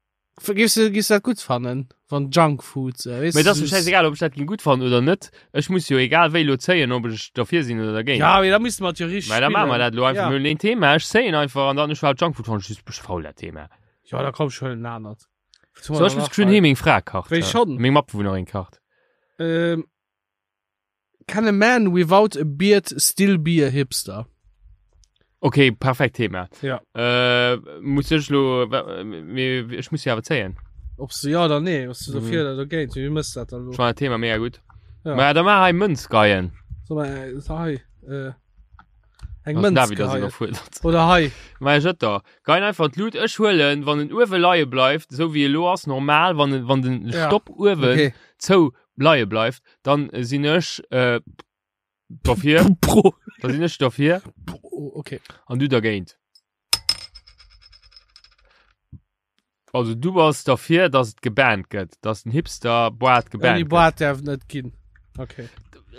Giffs du, giffs du dat gutt fannen, wann Junk Food, äh, weess Mee et ass du, mir schäisegal, ob ech dat ging gutt fannen oder net. Ech muss jo egal wéi lo zéien, ob ech derfir sinn oder dergéint. Ja, mee da misste mer et jo richteg Mä da maache mer spillen. dat lo einfach. Ja. Mir hunn een Thema, ech zéien einfach an dann ech war Junkfood fannen ech just bëssche faul dat Thema. Ja, da komm, ech huelen en anert. So, ech muss geschwënn heem meng Fra kacht. Wéi schonn? Meng Matbewunnerin kacht. Ähm, can a man without a beard still be a hipster? Okay, perfekt Thema. Ja. Äh, muss ech lo, mee ech muss jo awer zéien. Ob du ja oder nee, was du dofir Mhm. oder dogéint, wéi mëss dat dann lo? Ech fannen dat Thema mega gutt. Ja. Ma da maach hei Mënz geien. So, ma, äh, hei, äh, eng Also Mënz David ass geheien. iwwerfuerdert. Oder hei. Ma ech da. Geien einfach d'Lut. Ech huelen, wann en uewe leie bleift, esou wéi elo ass, normal, wann en, wann den Ja. Stopp uewen Okay. zou leie bleift, dann sinn ech äh, dofir. Pro. Da sinn ech dofir Pro. Okay. an du dergéint. Also du bass derfir, dass et gebannt gëtt, dass den Hipster Boart Ouni gebannt gëtt. Boart därf net ginn. Okay.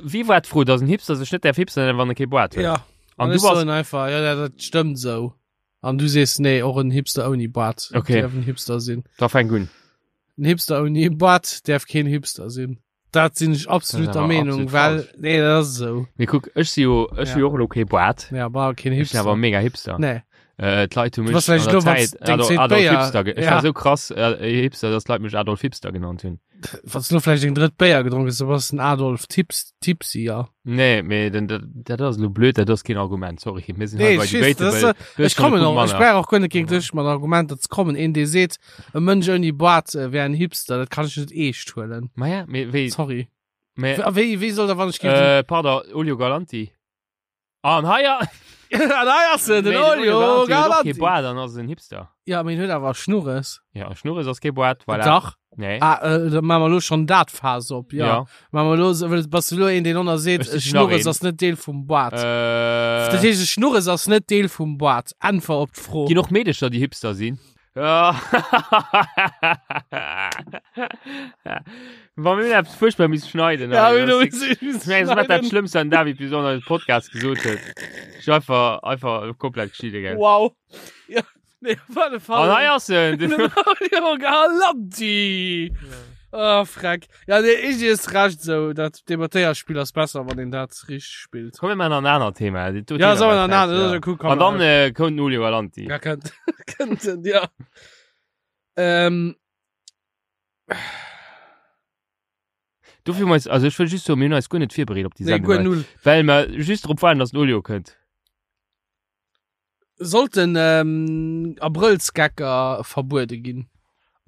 Wie war d'Fro, dass en Hipster sech net därf Hipster nennen, wann e kee Boart huet? Ja. An An du ech bass soen einfach, ja, ja, dat stëmmt sou. An du sees, nee, och en Hipster ouni Boart Okay. därf en Hipster sinn. Da fänk un. En Hipster ouni Boart därf keen Hipster sinn. Dat sinn ech absolut Dat ass der awer Meenung, absolut well falsch. nee, dat ass esou. Mee kuck, ech si jo, ech Ja. hu jo och elo kee Boart. Ja, war keen Ech sinn awer Hipster. mega Hipster. Nee. Äh, d'Leit hu Du mech bass vläicht an der elo, wanns Zäit deng Adolf, zweet Adolf Béier- Hipster ge Ech Ja. war sou krass äh, Hipster, dass d'Leit mech Adolf Hipster genannt hunn. Wanns du elo vläicht eng drëtt Béier gedronk hues, da bass den Adolf Tips, Tipsy, ja. Nee, mee den, dat, dat ass elo blöd, dat ass keen Argument, sorry. Mir sinn Nee, hei bei ech weess, dat ass, Debatable. Du hues ech schon e kommen Punkt och, ech manner. brauch och guer net géint dech mat Argumenter ze kommen. Een, dee seet, e Mënsch ouni Boart äh, wär en Hipster, dat kann ech net eescht huelen. Ma ja, mee wéi, Sorry. mee, A wéi, wéi soll da, wann ech géif den äh, pardon, Olio Galanti. An hei a- An hei ass en, den Nee, Olio Galanti huet och kee Galanti. Boart an ass en Hipster. Ja, mee en huet awer Schnurres. Ja, Schnurres ass kee Boart, voilà. Dach. Nee. Ah, äh, da maache mer elo schonn dat Faass op, ja. Ja. Maache mer elo, well bass du elo een, deen ënner seet, Ech sichen Schnurres nach een. ass net Deel vum Boart. Äh, Dat heescht, e Schnurres ass net Deel vum Boart. Äntwer op d'Fro. Ginn och Meedecher, déi Hipster sinn? Ja. Wa mir hunn eppes fuerchtbar missen schneiden. Ja, hei. mir hu Das ist- missen Ich meine, das war das schneiden. Schlimmste an David bis an Podcast gesot huet. Ich einfach, einfach komplett geschieden, gell. Wow. Ja, nee, op alle Fall. An hei ass en. Den Olio Galanti. Oh, freck. Ja, nee, ich ist recht so. Dat Debattéierspill ass besser, wann een dat richteg spillt. Komm, mir maachen nach en anert Thema. Dat do Ja, Thema sollen wir war nach en anert, scheiße, das ist ja. ja cool, komm, An dann äh, äh, kommt den Olio Galanti. Ja, könnt, könnten, ja. Ähm, Dofir hu mer eis, also ech wëll just soen, mir hunn eis guer net virbereet op déi nee, Sendung, guer well, null. well mer just drop waarden, dass den Olio kënnt. Sollten ähm, Abrëllsgecker verbuede ginn?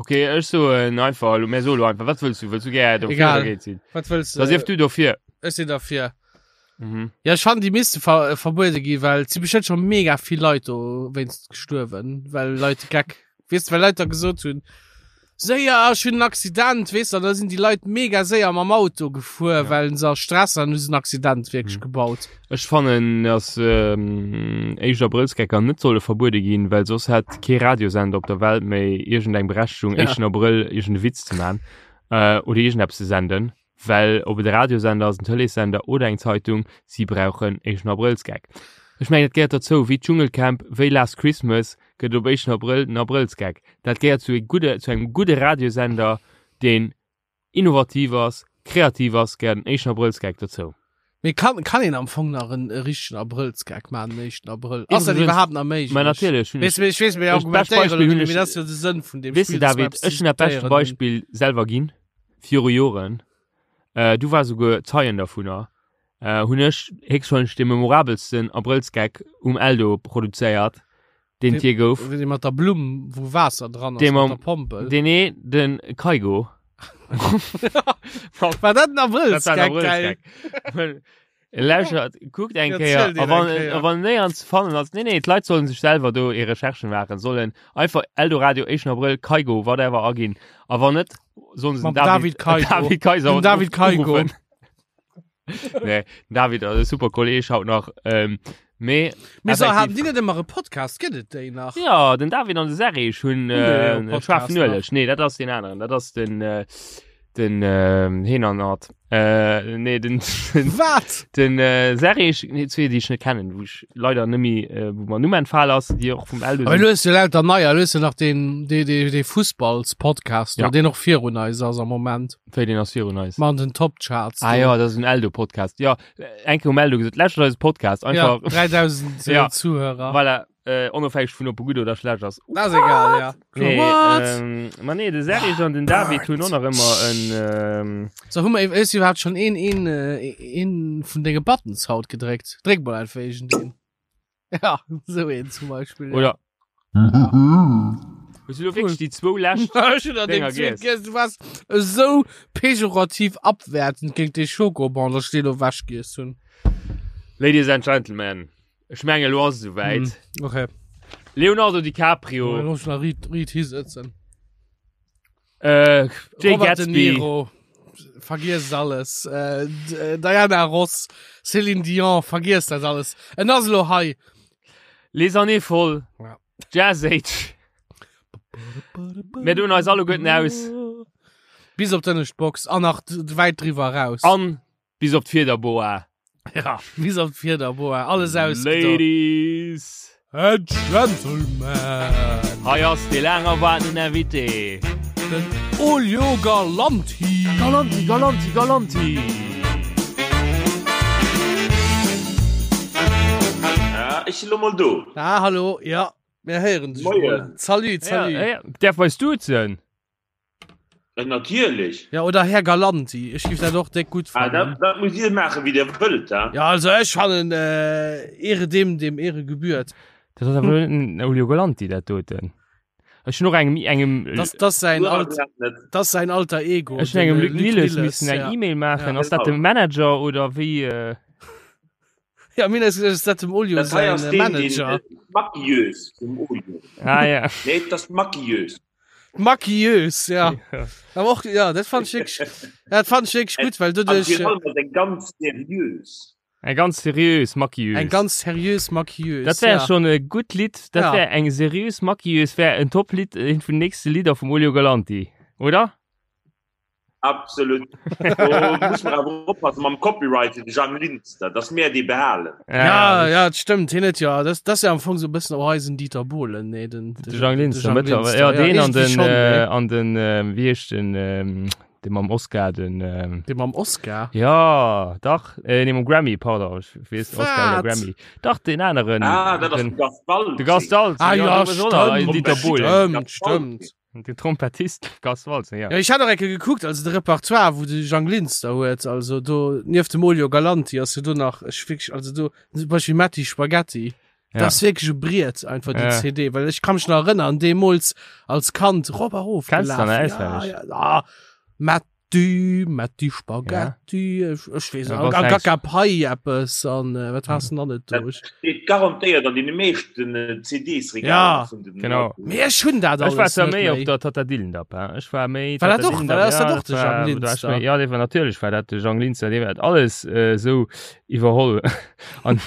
Okay, ech soen einfach, elo, mir soe lo einfach, wat wëlls du? Wëlls du gär dofir Egal. oder dergéint sinn? Wat wëlls Da sief du dofir. Ech sinn dafir. Mhm. Ja, ech fannen, déi misste ver äh, verbuede ginn, well et si bestimmt schon mega vill Leit do wéinst gestuerwen, well Leit Geck, weess du, well Leit da gesot hunn, séier, ech hunn en Accident, weess du, an da sinn déi Leit mega séier mam Auto gefuer, Ja. well se a Stress an hu se en Accident wierklech Mhm. gebaut. Ech fannen, dass ähm, éischt Abrëllsgecker net solle verbuede ginn, well soss hätt kee Radiosender op der Welt méi iergendeng Berechtigung, Ja. éischten Abrëll iergende Witz ze man äh, oder iergendeppes ze senden. Well ob et e Radiosender ass, en Tëleessender oder eng Zeitung, si brauchen éischten Abrëllsgeck. Ech mengen, dat gehéiert derzou, wéi d'Dschungelcamp, wéi Last Christmas gëtt et op éischten Abrëll den Abrëllsgeck. Dat gehéiert zu e gudde, zu engem gudde Radiosender, deen innovativ ass. Kreativ ass, gehéiert en éischten Abrëllsgeck dozou. Mee kann, kann een am Fong nach en e richtegen Abrëllsgeck maachen, den éischten Abrëll? Ass dat Iwwregens- iwwerhaapt nach méiglech? Mä natierlech hunn Weess ech, du, ech weess, mir Ech- bescht argumentéieren Beispill hunn elo, ech- mee dat ass jo de Sënn vun deem weess du Spill, dass mer David, eppes ech hunn dat beschte diskutéieren. Beispill selwer ginn, viru Joren, äh, du war souguer Zeien dervunner, äh, hunn ech héchstwahrscheinlech de memorabelsten Abrëllsgeck um Eldo produzéiert, deen et je gouf. Dee mat der Blumm, wou Waasser dran ass, Dee mat mam- der Pompel. Deen nee, den Kaigo. War dat en Dat war en Abrëllsgeck? Geil. Abrëllsgeck. Lauschert, kuckt eng Ja, Kéier, ziel deen a wann, eng Kéier. a wann néierens ze fannen ass, nee, nee, d'Leit sollen sech selwer do hir Recherchen maachen, sollen einfach Eldoradio, 1. Abrëll, Kaigo, whatever aginn. A wann net, sollen se Mam den David Kaigo. David Kaiser Den David Kaigo. uruffen. Nee, den David ass e super Kolleg haut nach. Ähm, mee Mee so, effektiv- haben déi net ëmmer e Podcast? Gëtt et déi nach? Ja, den David an de Serge hunn Hunn déi e äh, Podcast Schwaarfen Ueleg. Nee, dat ass den aneren. Dat ass den äh, den äh, Heenernert. Äh, nee, den, den, Wat? den äh, Serge, nee, zwee, déi ech net kennen, wou ech leider nëmmi, äh, wou mer Numm entfal ass, déi och vum Eldo Aber sinn. du hues jo lauter neier, du hues jo nach den, dee, dee, dee Fussballs-Podcast, Ja. deen och virun eis ass am Moment. Wéi deen ass virun eis. Mat den Top-Charts. Ah do. ja, dat ass en Eldo-Podcast. Ja, eng Kéier um Eldo gesot, lauschtert eise Podcast. Ja, Einfach, 3000 Ja. Zuhörer. voilà, äh, onofhängeg vun ob e gutt oder schlecht ass. Das ist egal, ja. Nee, What? ähm, ma nee, de Serge an den David hunn och nach ëmmer en, ähm, So, hu mer ist überhaupt schon een, een, äh, een vun denge Buttons haut gedréckt? Dréck mal einfach irgendeen. Ja, so een zum Beispiel. ja. oder Hues du lo wierklech déi zwou lescht Ech hunn an dem Dinger zweeten giess? giess. Du warst esou pejorativ abwertend géint dee Schokobon, dass ech deen ewech giess hunn. Ladies and Gentlemen, ech mengen elo ass et esouwäit. Hm, okay. Leonardo DiCaprio, Dann muss ich nach riit, riit hisitzen. äh, Jay Robert De Gatsby, Niro, vergiess alles. Äh, D- äh, Diana Ross, Céline Dion, vergiess dat alles. En ass elo hei. Les années folles, Ja. Jazz Age. Mir doen eis alleguerten aus. Bis op d'ënnescht Box an nach d- wäit driwwer raus. An bis op d'Fiederboa. Ja, bis op d'Fiederboa. Alles aus. Ladies And Gentlemen. Hei ass dee laang erwaartenen Invité. Den Olio Galanti. Galanti, Galanti, Galanti. Ja, ech sinn lo mol do. Ah, hallo, ja, mir héieren dech Moien. mol. Salut, salut. Ja, ja. Därf eis duzen? Äh, natierlech. Ja, oder Här Galanti. Ech géif dat och déck gutt Ah, fannen. dat, dat muss Dir maachen, wéi Dir wëllt, ha? Ja, also ech fannen, äh, Ehre dem, dem Ehre gebührt. Dat ass awer den Olio Galanti, dat doten. Ech hunn och engem, engem, Das, das sein Du alt, awer net. das sein alter Ego. ech hunn engem den, äh, Luc Nilles missen eng ja. E-Mail maachen. Ja. Ass dat de Manager oder wéi? Äh? Ja, mir ass geduecht, dat dem Olio Dat hei sein ass äh, deen, deen, Manager. äh, Maquilleuse vum Olio. Ah ja. Nee, dat ass d'Maquilleuse. Maquilleuse, ja. Ja. Aber och, ja, dat fand ich wirklich, dat fand ich wirklich gut, weil An doduerch virun allem ass eng ganz seriös. Eng ganz seriös Maquilleuse. eng ganz seriös Maquilleuse. Dat wär ja. schon e gutt Lidd. Dat Ja. wär eng seriös Maquilleuse, wär en Top-Lidd, eent vun den nächste Lidder vum Olio Galanti, oder? Absolut. Do muss man awer oppassen mam Copyright fir de Jang Linster, dass mär dee behalen. Ja, ja, dat stimmt. Hien huet ja, das, das ist ja am Fong so e bëssen och eisen Dieter Bohlen, nee, den, De Jang Linster, mëttlerweil. Ja, deen an irgendwie den, schon, äh, nee. an den, äh, wéi heescht den, ähm, dee mam Oscar, den, ähm, Dee mam Oscar. ja, dach, äh, nee, mam Grammy, pardon, ech weess, Oscar oder Wat? Grammy. Dach, den aneren. Ah, dat ass den, de Gast Waltzing. de Gast Waltzing. Ah, ja, du bist auch noch stimmt, Dieter Bohlen. Stimmt, stimmt. Den Trompettist Gast Waltzing, ja. Ja, ich hat och ecke gekuckt, also de Repertoire, wou de Jang Linster huet, also do, nieft dem Olio Galanti ass jo do nach, ech wierklech, also do, zum Beispiel Matti Spaghetti. Ja. Das ist wirklich e Briet, einfach die Ja. CD, well ech kann mich nach erënnern, deemools als Kand, rop a rof Kennst du gelaf. dann Ja, auswendig? ja, ah, Matti, Matti Spaghetti, ech, ech weess Ja, net, was an denkst- Gaga Pai eppes, an äh, wat hast du denn dann net Dat durch? steet garantéiert an deene meeschten äh, CDs-Regaler Ja, vun den genau. Mee ech hunn dat Ech war alles zwar net méi op méi. der Tata Dillendap, hein. Ech war méi War dat Tata och- Dillendap, war dat ja, och de war- Jang da war ech Linster? méi- Ja, dee war natierlech war dat de Jang Linster, dee hat alles äh, sou iwwerholl an,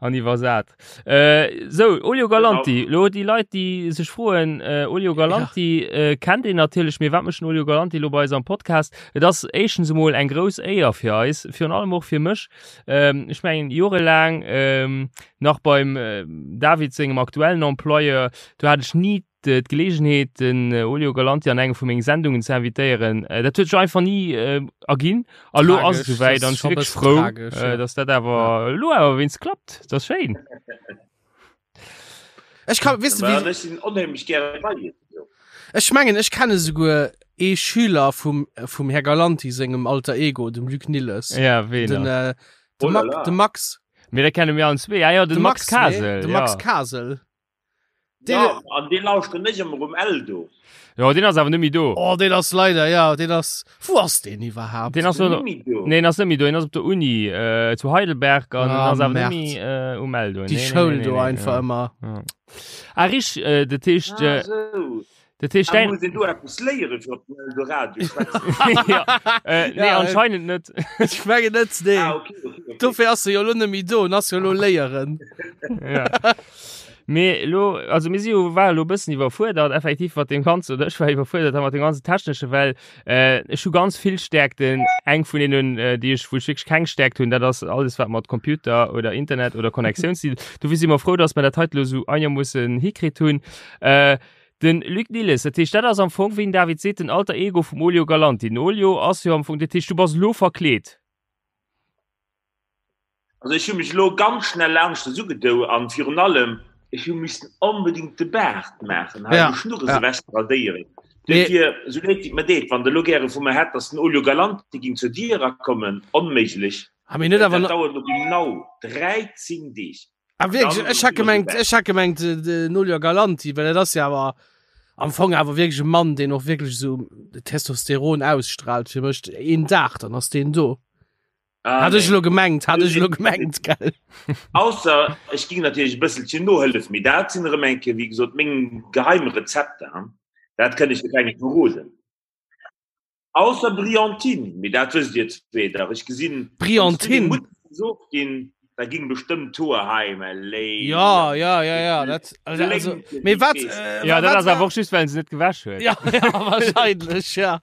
an iwwersat. Äh, sou, Olio Galanti, lo déi Leit, déi sech froen, äh, Olio Galanti äh, kennt een natierlech, mee wat mécht den Olio Galanti lo bei eis am Podcast? Et ass éischtens emol eng grouss Éier fir eis, virun allem och fir mech. Ähm, ech mengen, jorelaang ähm, nach beim äh, David sengem aktuellen Employeur, do hat ech ni. d'Geleegenheet den Olio Galanti an enge vu mengen Sendungen ze invitéieren. Dat huet sech einfach ni erginn. A lo ass et esouwäit an ech si wierklech frou, dass dat awer elo awer wéinst klappt. Dat ass schéin. Ech kann, weess de wéi. Ech sinn onheemlech gäre bei Iech. Ech mengen ech kenne souguer ee Schüler vum vum Här Galanti sengem Alter Ego, dem Luc Nilles. Ja, ween? Den, äh, de, Oh la Ma la. de Max. Mee da kenne mir allen zwee. Ah ja, den De Max, Max, nee, Kasel. de ja. Max Kasel. Den, Ja, an dee lauschteren ech ëmmer um Eldo. Ja, den ass awer net méi do. oh, den ass leider, ja, den ass. Wou ass den iwwerhaapt? Den ass Den no, net méi do. nee, den ass net méi do. Den ass op der Uni äh, zu Heidelberg an Ah, ass awer net Merd. méi äh, um Eldo. Déi Nee, nee, Schoul nee, do nee, nee, einfach ja. ëmmer. Ja. Ah, rich, äh, dat heescht, Ah, äh, sou. dat heescht Ah, dein, muss een do eppes léieren fir op den Eldoradio schwätzen? ja, äh, nee, Ja, äh, anscheinend net. Ech mengen net, nee. Ah, okay, okay, okay. Dofir ass se jo lo net méi do, en ass jo lo léieren. ja. Mee lo, also mir si jo war lo bëssen iwwerfuerdert effektiv mat dem ganzen, oder ech war iwwerfuerdert mat dem ganzen technesche, well äh, ech hu ganz vill Stärkten. Eng vun deenen, äh, déi ech wou ech wierklech keng Stärkt hunn, dat ass alles wat mat Computer oder Internet oder Connectioun ze dinn. Dofir si mer frou, dass mer dat hei lo sou einermoossen hikritt hunn. Äh, den Luc Nilles, dat heescht, dat ass am Fong, wéi den David seet, den Alter Ego vum Olio Galanti. Den Olio ass jo am Fong, dat heescht, du bass lo verkleet. Also ech hu mech elo ganz schnell laanscht es ugedou an virun allem ech hu missen onbedingt de Baart maachen, hei Ja, de Schnurres ja. ewech ze radéieren. Mee- Duerfir, esou leed wéi et mer deet, wann Der elo gäre vu mer hätt, dass den Olio Galante ging zur Dier erakommen, onméiglech. Ah, mee net Dat awer na- dauert elo genau 13 Deeg. Ah, wierklech? Dann Ech hat sinn mer gemengt, esouwäit. ech hat gemengt, äh, den Olio Galanti, well dat ass ja awer am Fong awer wierklech e Mann, deen och wierklech esou Testosteron ausstrahlt fir mech. Een Dag, dann ass deen do. Ah, Hat ech nee. lo gemengt, hat ech lo gemengt, gell? Ausser ech ging natierlech e bësselchen nohëllef, mee dat sinn erëm eng Kéier, wéi gesot, meng geheim Rezepter, hein. Dat kënn ech jo kengem verroden. Ausser Brillantine, mee dat wësst Dir zwee dach. Ech gesinn, wann s du deng Brillantine? Mutter gesot ginn, da ging bestëmmt d'Hoer hei, mä léi. Ja, ja, ja, ja, dat, also, also, mee wat, äh, Ja, dat wat ass war- awer och just, well en se net gewäsch huet. Ja, ja, wahrscheinlech, ja.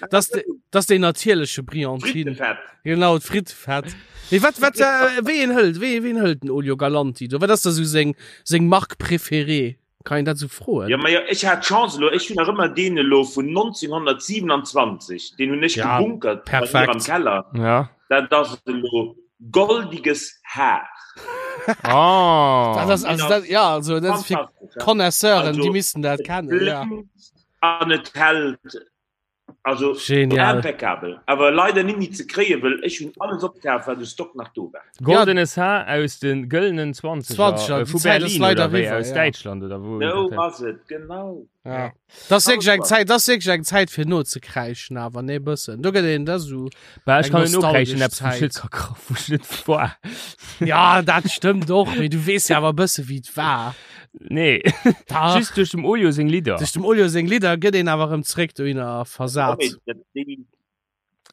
Das, de, das den natierleche Brillantine. Frittefett. Genau, d'Frittefett. Mee wat, wat, äh, wéi een hëlt, wéi, ween hëlt den Olio Galanti do? Wat ass da sou seng, seng Marque préférée? Kann een dat sou froen? Ja, ma ja, ech hat d'Chance elo, ech hunn nach ëmmer deen elo vun 1927, deen hunn ech Ja, gebunkert bei mir perfekt. am Keller. Ja. Dat ass elo goldiges Haar. Oh. Dat ass, also, dat, ja, also, dat ass fir Fantastesch, ja. Connaisseuren, Also, déi missten dat Et kennen, ja. blénkt an et hält. Also Genial. impeccabel. Awer leider net méi ze kréien, wëll ech hunn alles opkaf, wat u Stock nach do war. Goldenes Haar aus de gëllenen 20er, 20er, äh, déi vu Zäit ass Berlin leider oder wéi, eriwwer, aus ja. Däitschland oder wou. Sou ass et, genau. Ja. Das ass wierklech eng Zäit, das ass wierklech eng Zäit fir nozekräischen awer, nee, bëssen. Do gëtt een da sou. Bah, ech Eng kann net nokräischen, nostalgesch eppes wou ech net Zäit. ka kra- wou ech net war. Ja, dat stëmmt och, mee du weess jo awer e bësse wéi et war. Nee, Dach. just duerch dem Olio seng Lidder. Duerch dem Olio seng Lidder gëtt een awer erëm zréck dohinner versat. Déi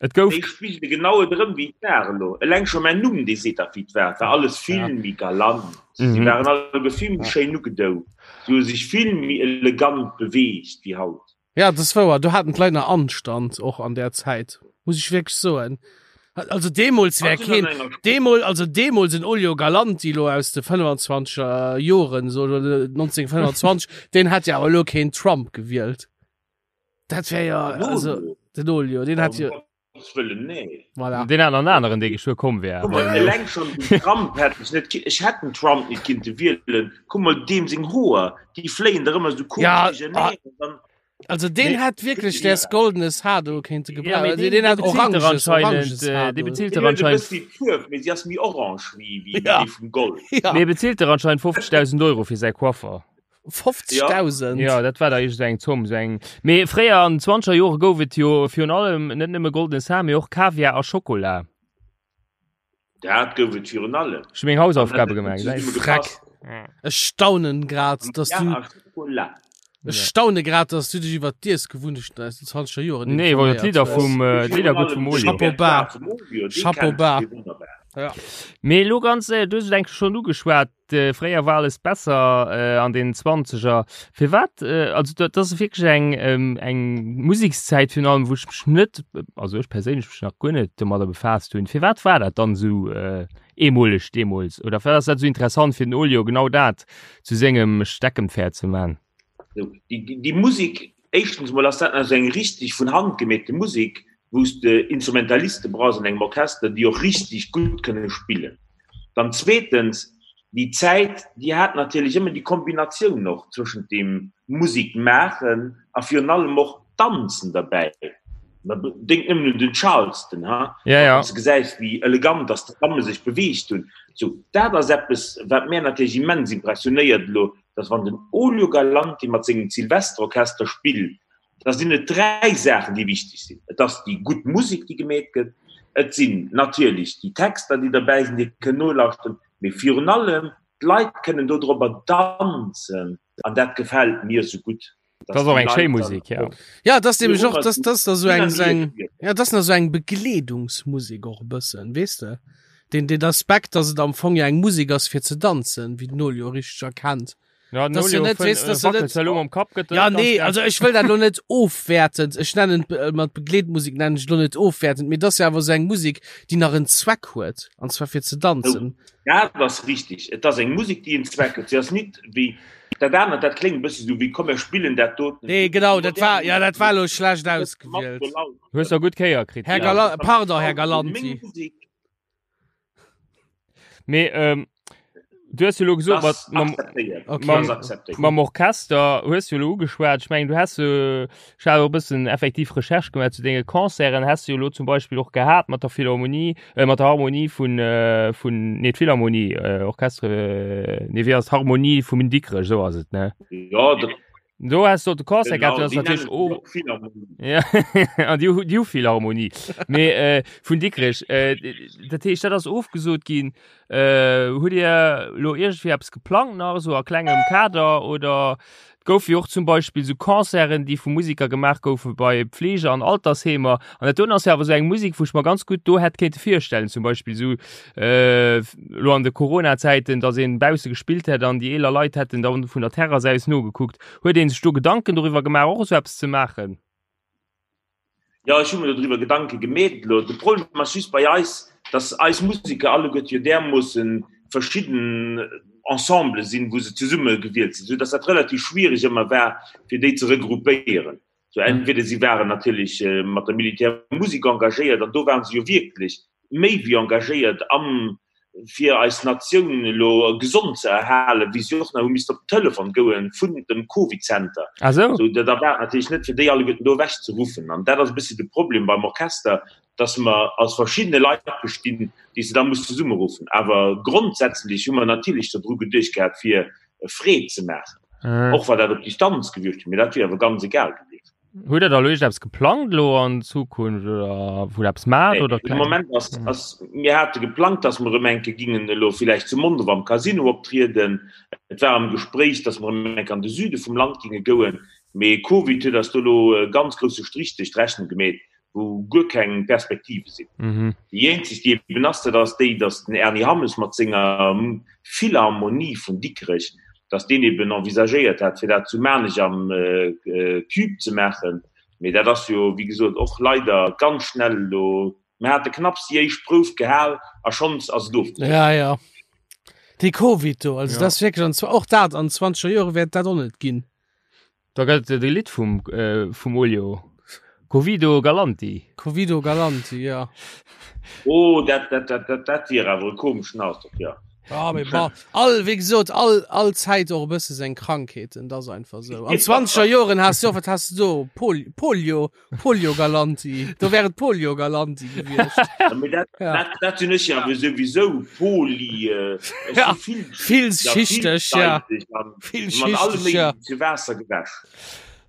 Et gouf spigele genau et erëm wéi et war elo. Eleng scho mäin Numm, dee seet dach wéi et war. Et war alles vill Ja. méi galant. Si Mhm. waren alleguer vill méi schéin ugedou. Si hu sech vill méi elegant beweegt wéi haut. Ja, dat ass wouer. Do haten d'Leit nach Anstand, och an där Zäit, muss ech wierklech soen. Also deemools wär keen, deemol, also deemools en Olio Galanti lo aus de 25er Joren, so 1925, deen hätt jo awer elo keen Trump gewielt. Dat wär jo, also den Olio, deen hätt jo. Wëllen, nee. Voilà. Deen hat an aneren, dee geschwë komm wär. Guck mal, eleng schon den Trump hätt ech net, ech hätt den Trump net kinnte wielen. Guck mal, deem seng Hoer, déi fléien der ëmmer sou komesch Ja, duercherneen. Dann, Also deen Nee. hätt wierklech däers goldenes Haar do kéinte Ja, gebrauchen. mee Also deen, deen dee hat bezilt der oranges, anscheinend, oranges äh, Haar dee do. bezilt deen der huet e anscheinend, bëssi d'Fuerf, mee si ass méi orange wéi, wéi Ja. déi vum Gold. Ja, mee bezilt der anscheinend 50.000 Euro fir säi Coiffer. 50.000. Ja, dat war da iergend eng Zomm, sou eng. Mee fréier an den 20er Jore gouf et jo virun allem net nëmme goldenes Haar, mee och Kaviar a Schokola. Dat gouf et virun allem. Ech hu meng Hausaufgabe gemaach, Zesumme gesäis. Freck. gepasst. Ech staunen grad, dass du, Ja, a Schokola. ech staune grad, dass du dech iwwer d'Iessgewunnechten aus den 20er Joren Nee, wor informéiert d'Lidder hues. vum, äh, d'Lidder gutt vum Olio. Chapeau bas. Chapeau bas. bas. Mee elo ganz, äh, du hues et enk schonn ugeschwat, Fréier war alles besser an den Zwanzeger. Firwat, also dat ass wierklech eng eng Musekszäit virun allem, wou ech mech net, also ech perséinlech mech nach guer net domadder befaasst hunn. Firwat war dat dann esou eemoleg deemools oder firwat ass dat esou interessant fir den Olio genau dat zu sengem Steckenpferd ze man? Déi Musek, éischtens mol ass dat nach esou eng richtig vun Hand gemeete Musek, wou s de Instrumentaliste brauchs an engem Orchester, déi och richtig gutt kënne spillen. Dann zweetens, déi Zäit, déi hat natierlech ëmmer déi Kombinatioun och zwëschent dem Musek maachen a virun allem och Danzen derbäi. Denk nëmmen un den Charleston, ha? Ja, ja. Wann s de gesäis, wéi elegant dass d'Damme sech beweegt hunn. Sou, dat ass eppes, wat mär natierlech immens impressionéiert elo, dass wann den Olio Galanti mat sengem Silvesterorchester spillt, da sinn et dräi Saachen, déi wichteg sinn. Et ass déi gutt Musek, déi gemeet gëtt, et sinn natierlech déi Texter, déi derbäi sinn, déi ee kënn nolauschteren, mee virun allem, d'Leit kënnen dodrobber danzen an dat gefält mir esou gutt. Dat ass och eng schéi Musek, ja. Ja, dat ass nämlech och, dat ass da sou eng, sou eng, ja, dat ass nach sou eng Begleedungsmusek och e bëssen, weess de? Den, den Aspekt, dass et am Fong ja eng Musek ass fir ze danzen, wéi den Olio richteg erkennt. Ja, Das ja net, weess, das ja net, elo mam Kapp gëtt Ja, nee, also ech wëll dat lo net ofwäertend, ech nennen äh, mat Begleetmusek nennen ech lo net ofwäertend, mee das ja awer sou eng Musek, déi nach en Zweck huet, an zwar fir ze danzen. Oh, dat ass richtig. Et ass eng Musek, déi en Zweck huet. Si ass nit wéi dat anert, dat kléngt e bëssi sou wéi komm mir spillen dat doten. Nee, genau, dat war, ja, dat war lo schlecht ausgewielt. Hues der gutt Kéier kritt. Här Gala pardon, Här Galanti. Mee ähm, du hues jo lo gesot, mat, mam, Okay. mam, mam Orchester hues du lo ugeschwat. Ech mengen, du has jo, ech hat och e bëssen effektiv Recherche gemaach zu denge Concerten, has du jo lo zum Beispill och gehat mat der Philharmonie, äh, mat der Harmonie vun, äh, vun, nee, d'Philharmonie, äh, Orchestre, äh, nee, wéi ass d'Harmonie vum Dikrech, esou ass et, ne? Ja, dat Do has du de Concert Genau, gehabt, das déi natürlich nennen oh, och Philharmonie. ja, an die, die Philharmonie. Mee äh, vun Dikrech, äh, dat heescht, dat ass ofgesot ginn. Äh, hutt Dir lo iergendwéi eppes geplangt nach esou a klengem Kader oder et gouf jo och zum Beispill sou Concerten, déi vu Musiker gemaach goufe bei Pflege an Altersheemer. An dat doen ass jo awer sou eng Musek, wou ech mer ganz gutt do hätt kéinte virstellen, zum Beispill sou äh, lo an de Corona-Zäiten, dass een bausse gespillt hätt an déi eeler Leit hätten dann vun der Terrass aus nogekuckt. Huet een sech do Gedanken doriwwer gemaach, och esou eppes ze maachen? Jo, ech hu mir doriwwer Gedanke gemeet elo. De Problem ass just bei eis, dass eis Museker alleguerte jo därmoosse verschidden Ensembele sinn, wou se zesumme gewielt sinn, soudass dat relativ schwierig ëmmer war, fir déi ze regroupéieren. Sou entweder si waren natierlech mat der Militärmusek engagéiert, an do waren se jo wierklech méi wéi engagéiert am fir eis Natioun elo gesond ze erhalen, wéi si och nach hu missten op den Telefon goen vun dem Covid-Center. Ah sou. Sou da war et natierlech net fir déi alleguerten do ewech ze ruffen. An dat ass e bëssi de Problem beim Orchester, dass mer aus verschiddene Leit bestinn, déi s de da muss zesummeruffen. Awer grondsätzlech hu mer natierlech dodru geduecht gehat fir Freed ze maachen, och wa dat op Distanz gewiescht wier, mee dat wier awer ganz egal gewiescht. Hutt Der da elo iergendeppes geplangt elo an Zukunft oder wou Der eppes maacht Nee, oder de Moment ass, ass, mir hate geplangt, dass mer erëm eng Kéier gingen elo villäicht zu Mondorf am Casino optrieden. Et war am Gespréich, dass mer erëm eng Kéier an de Süde vum Land ginge gouen, mee Covid huet eis do elo e ganz grousse Strich duerch d'Rechnung gemeet. wou guer keng Perspektive sinn. Mhm. Déi eenzeg, déi eben ass, dat ass déi, datt den Erny Hammes mat senger Philharmonie vun Dikrech, datt deen eben envisagéiert hat, fir dat zu Maarnech am Cube ze maachen. Mee dat ass jo, wéi gesot, och leider ganz schnell elo, mir hate knapps déi éischt Prouf gehal a schonns ass et ofgesot. Ja, ja. Dee Covid do, also Ja. dat ass wierklech, an zwar och dat, an zwanzeger Jore wäert dat och net ginn. Da gëtt et e Lidd vum, äh, vum Olio. Covido Galanti. Covido Galanti, ja. Oh, dat, dat, dat, dat, dat wier awer e komeschen Ausdrock, ja. Ja, mee bon, all, wéi gesot, all, all Zäit och e bësse seng Krankheeten, dat ass einfach esou. An zwanzeger Joren has du och, wat has du do? Pol, Polio, Polio Galanti. Do wär et Polio Galanti gewiescht. Ja, mee dat, Ja. dat, dat sinn ech jo awer souwisou Poli, äh, ech Ja, si vill, Villschichteg, ja. villseitig an mat allem Villschichteg, ja. Méiglechen zu Waasser gewäsch.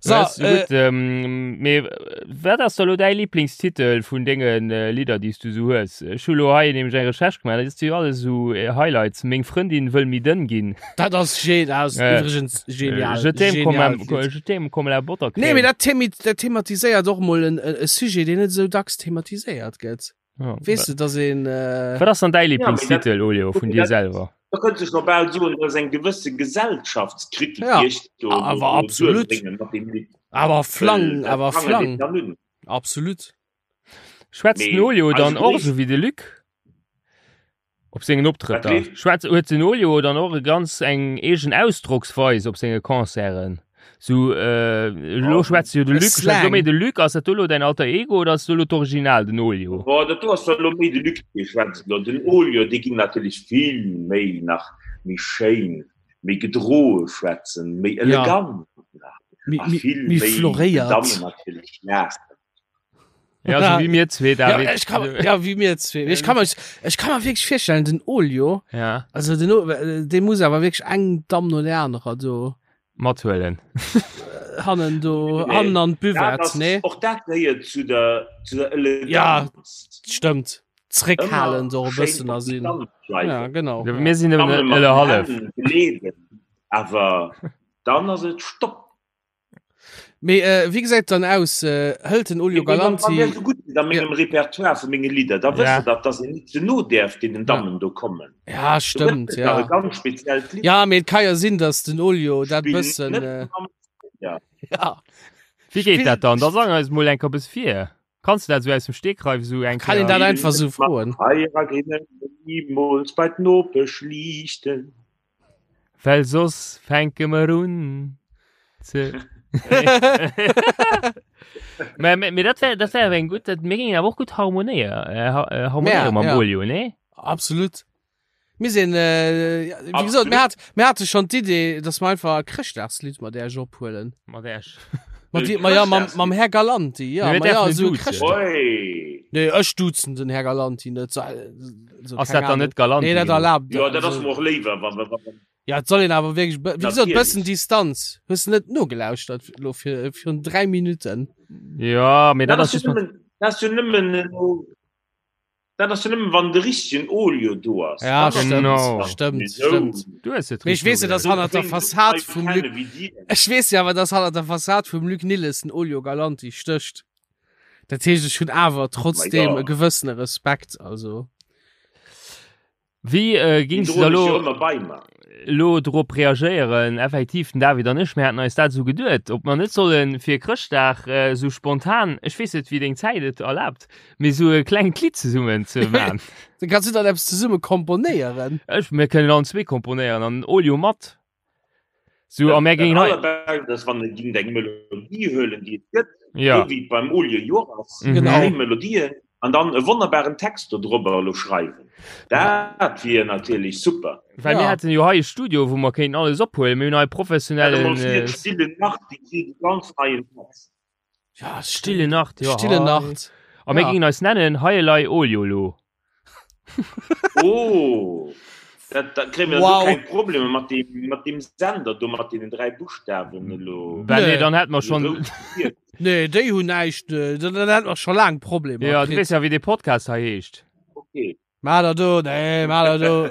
So, Ja, ist äh, gut, ähm, mee wat ass da lo däi Lieblingstitel vun dengen äh, Lidder, déi s du sou hues? Ech hu lo hei nämlech eng Recherche gemaach, dat ass jo alles sou äh, Highlights. Meng Frëndin wëll méi dënn ginn. Dat ass ge dat ass Äh, übrigens genial. Je t'aime comme Genial un- Lied. je t'aime comme la Buttercrème. Nee, mee dat, themi dat thematiséiert och mol en, e e Sujet, deen net esou dacks thematiséiert gëtt. Ja, Weess du, dass een. Äh, Wat ass dann däi Ja, mee dat- Lieblingstitel, Olio, vun dir dat- selwer? Da kënnt sech noch bal soen, dat ass eng gewësse Gesellschaftskritik, Ja, déi ech do, awer do, do absolut. duerbréngen mat deem Lidd. awer flang, Well dat awer prangert flang. een dann un. Absolut. Schwätzt den Mee Olio dann eise och gréissten- sou wéi de Luc? Op sengen Optrëtter? Wat Schwätzt, huet den Olio dann och e ganz eng eegen Ausdrocksweis op senge Concerten? So, äh, lo schwätzt jo de Luc, schwätzt lo méi de Luc, ass dat do lo däin alter Ego oder ass do lo d'Original, den Olio? Boah, dat do ass da lo méi de Luc, dee schwätzt lo. Den Olio, dee ging natierlech vill méi nach méi schéin, méi gedroe schwätzen, méi elegant nach. Méi, A méi, vill méi méi floréiert. Dammen natierlech laachen. Ja, so wéi mir zwee, Ja, David. ech kann, ja, wéi mir zwee. Ech kann mir, ech kann mir wierklech virstellen, den Olio, Ja, also den, O- äh, dee muss awer wierklech eng Damm no der anerer do mathuelen. hannen do, Nee. hannen an Dat d'Buvette, ass, nee? och dat gehéiert zu der, zu der Ja. Eleganz. Stëmmt. Zréckhalen Ëmmer do e schéin bëssen op a sinn. Distanz bleiwen. Ja, genau. Ja, mir sinn Damme nëmmen mat ëlle den hallef. Hänn geleeden, awer dann ass et Stopp. Mee äh, wéi gesäit dann aus? Äh, hëlt den Olio Galanti. Wann so gutt sidd a mengem Repertoire vu menge Lidder, da wësst Ja. der dat, dass een net ze no däerf deenen Dammen do kommen. Ja, Do gëtt stëmmt, et nach ja. e ganz speziellt Lidd. Ja, mee et ka jo sinn, dass den Olio dat Spill bëssen. net Äh, mam Ja. ja. Wéi geet dat dann? Da sang eis mol eng Kéier eppes vir. Kanns du dat sou aus dem Stegreif sou eng Kann een Kéier? dat einfach sou froen? Feierer ginn nimools bei d'Nopesch liichten. Well soss fänke mer un ze. Mä mä mä dat wär dat wär eng gutt dat mir géingen awer och gutt harmonéier äh, ha- äh, harmonéiere Ja, mam ja. Olio, nee? Absolut. Mir sinn, äh, ja, wéi gesot, mir hat, mir hate schon d'Idee, dass mer einfach e Chrëschtdagslidd mat Äerch ophuelen. Mat Äerch. Mat di, ma ja, mam, mam Här Galanti, ja, Mir ma ja, däerfen esou duzen. Chrëschtdag. Oi. Nee, ech duzen den Här Galanti net. So, so, Ass keng dat dann Ahnung. net Galanti Nee, dat genuch? erlaabt. Jo, dat ass also- mer och léiwer, wa wa wa Ja, et soll een awer wierklech, wéi gesot, Natierlech. bëssen Distanz. Hues du net nogelauschtert lo fir, virun 3 Minuten? Ja, mee dat Dat ass ass just jo mat. nëmmen, dat ass jo nëmmen elo, dat ass jo nëmmen, wann de richtegen Olio do ass. Ja, Dann ass stëmmt, Genau. stëmmt, Mee sou- stëmmt. Du hues et Mee ech richteg weess jo, dass nogelauschtert. hannert der Wéi Fassad Leit vum kenne Luc, wéi dir. ech weess jo awer, dass hannert der Fassad vum Luc Nilles den Olio Galanti stécht. Dat heescht, ech hunn awer trotzdem ja. e gewëssene Respekt, also. Wéi äh, Déi gings du da droen ech jo lo ëmmer bei mer. lo drop reagéieren? Effektiv, den David an ech, mir haten eis dat esou geduet, ob mer net solle fir Chrëschtdag äh, sou spontan, ech weess net, wéi deng Zäit et erlaabt, mee sou e klengt Lidd zesummen ze man. Dann kannst du dann eppes zesumme komponéieren. Ech, mir kënnen allen zwee komponéieren an den Olio mat. So, a mir Dat géingen hei. allerbescht ass, wann e géint eng Melodie huelen, déi et gëtt, Ja. esou wéi et beim Olio jo ass, Mhm. Genau. schéin Melodien an dann e wonnerbaren Text do drobber elo schreiwen. Dat wier natierlech super. Well mir Ja. hätten jo hei e Studio, wou mer kéinten alles ophuelen. Mir hunn hei Stell der professionellen mol vir, äh, d'Stille Nacht, déi kritt e ganz neien Text. Ja, Stille Nacht, ja. Stille hei. Nacht. A mir Ja. géingen eis nennen Heielei Olio lo. Oh, dat, dat kréie mir Wow. wow. keng Probleme mat dem, mat dem Sender do, mat deenen dräi Buchstaben elo. Well nee, Nee. dann hätt mer schon. Nee, déi hunn näischt, äh, dann dann hätt mer scho laang Problemer Ja, du kritt. weess ja, wéi dee Podcast hei heescht. Okay. Maa der do, nee, maa der do.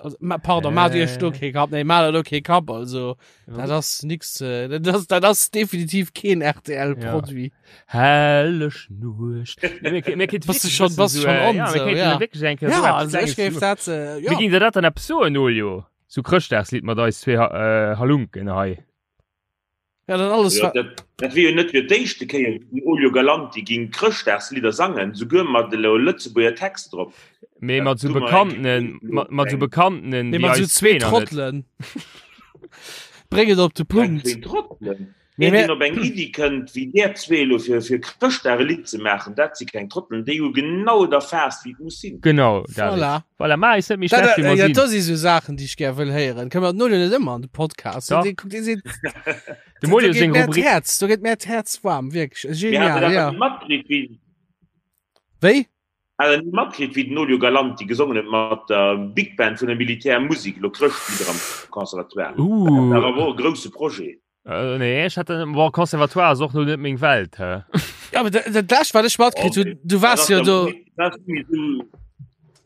Also, ma, pardon, maa dir do Äh. kee Kapp, nee, maa der do kee Kapp, also, dat ass nix, äh, dat ass, dat ass definitiv keen RTL-Produit. Helleg Nuecht. Nee, mir, mir kéint Bass du wierklech schon- bëssen bass du so, schon äh, on, Ja, mir so, kéinten ja. wierklech eng Kéier Ja, so eppes also ech Klenges géif zu- dat, äh, Mir ja. géing der dat dann eppes soen, Olio? So Chrëschtdagslidd mat eis zwee äh, Halunken hei. Ja, dann alles Ja, wa- dat, dat wier jo net fir d'éischte Kéier, wou den Olio Galanti ging Chrëschtdagslidder sangen, souguer mat elo Lëtzebuerger Text drop. Mee Dat mat so du mer Bekannten, eng mat, mat so Bekannten, Nee, déi mat so eis zwee zwee nach net. Trottelen. Bréng et op de Eng Punkt. zwee Trottelen. Nee, Een, mä- deen op eng Iddi kënnt, wéi där zwee elo fir, fir Chrëschtdag e Lidd ze maachen, dat si keng Trottelen, déi hu genau et erfaasst, wéi et muss sinn. Genau, David. Voilà. Voilà, ma eis net méi Dat, schlecht, wéi äh, mer ja, sinn. dat si so Saachen, déi ech gär wëll héieren. Kënne mer den Olio net ëmmer an de Podcast? Doch. Dee kuckt, dee seet, Dem Olio do geet seng mär Rubrik. d'Häerz, do geet mär d'Häerz waarm, wierklech. Mir Genial, haten dat ja. net matkritt, wéi, Wéi? hat der net matkritt, wéi den Olio Galanti gesongen huet mat der Big Band vun der Militärmusik, elo Chrëschtlieder am Conservatoire. Dat Uh, war awer och e grousse Projet. Äh, nee, ech hat bon, Conservatoire ass och no net meng Welt hä? Ja, aber dat, dat lescht wat ech matkritt hunn, du wars jo do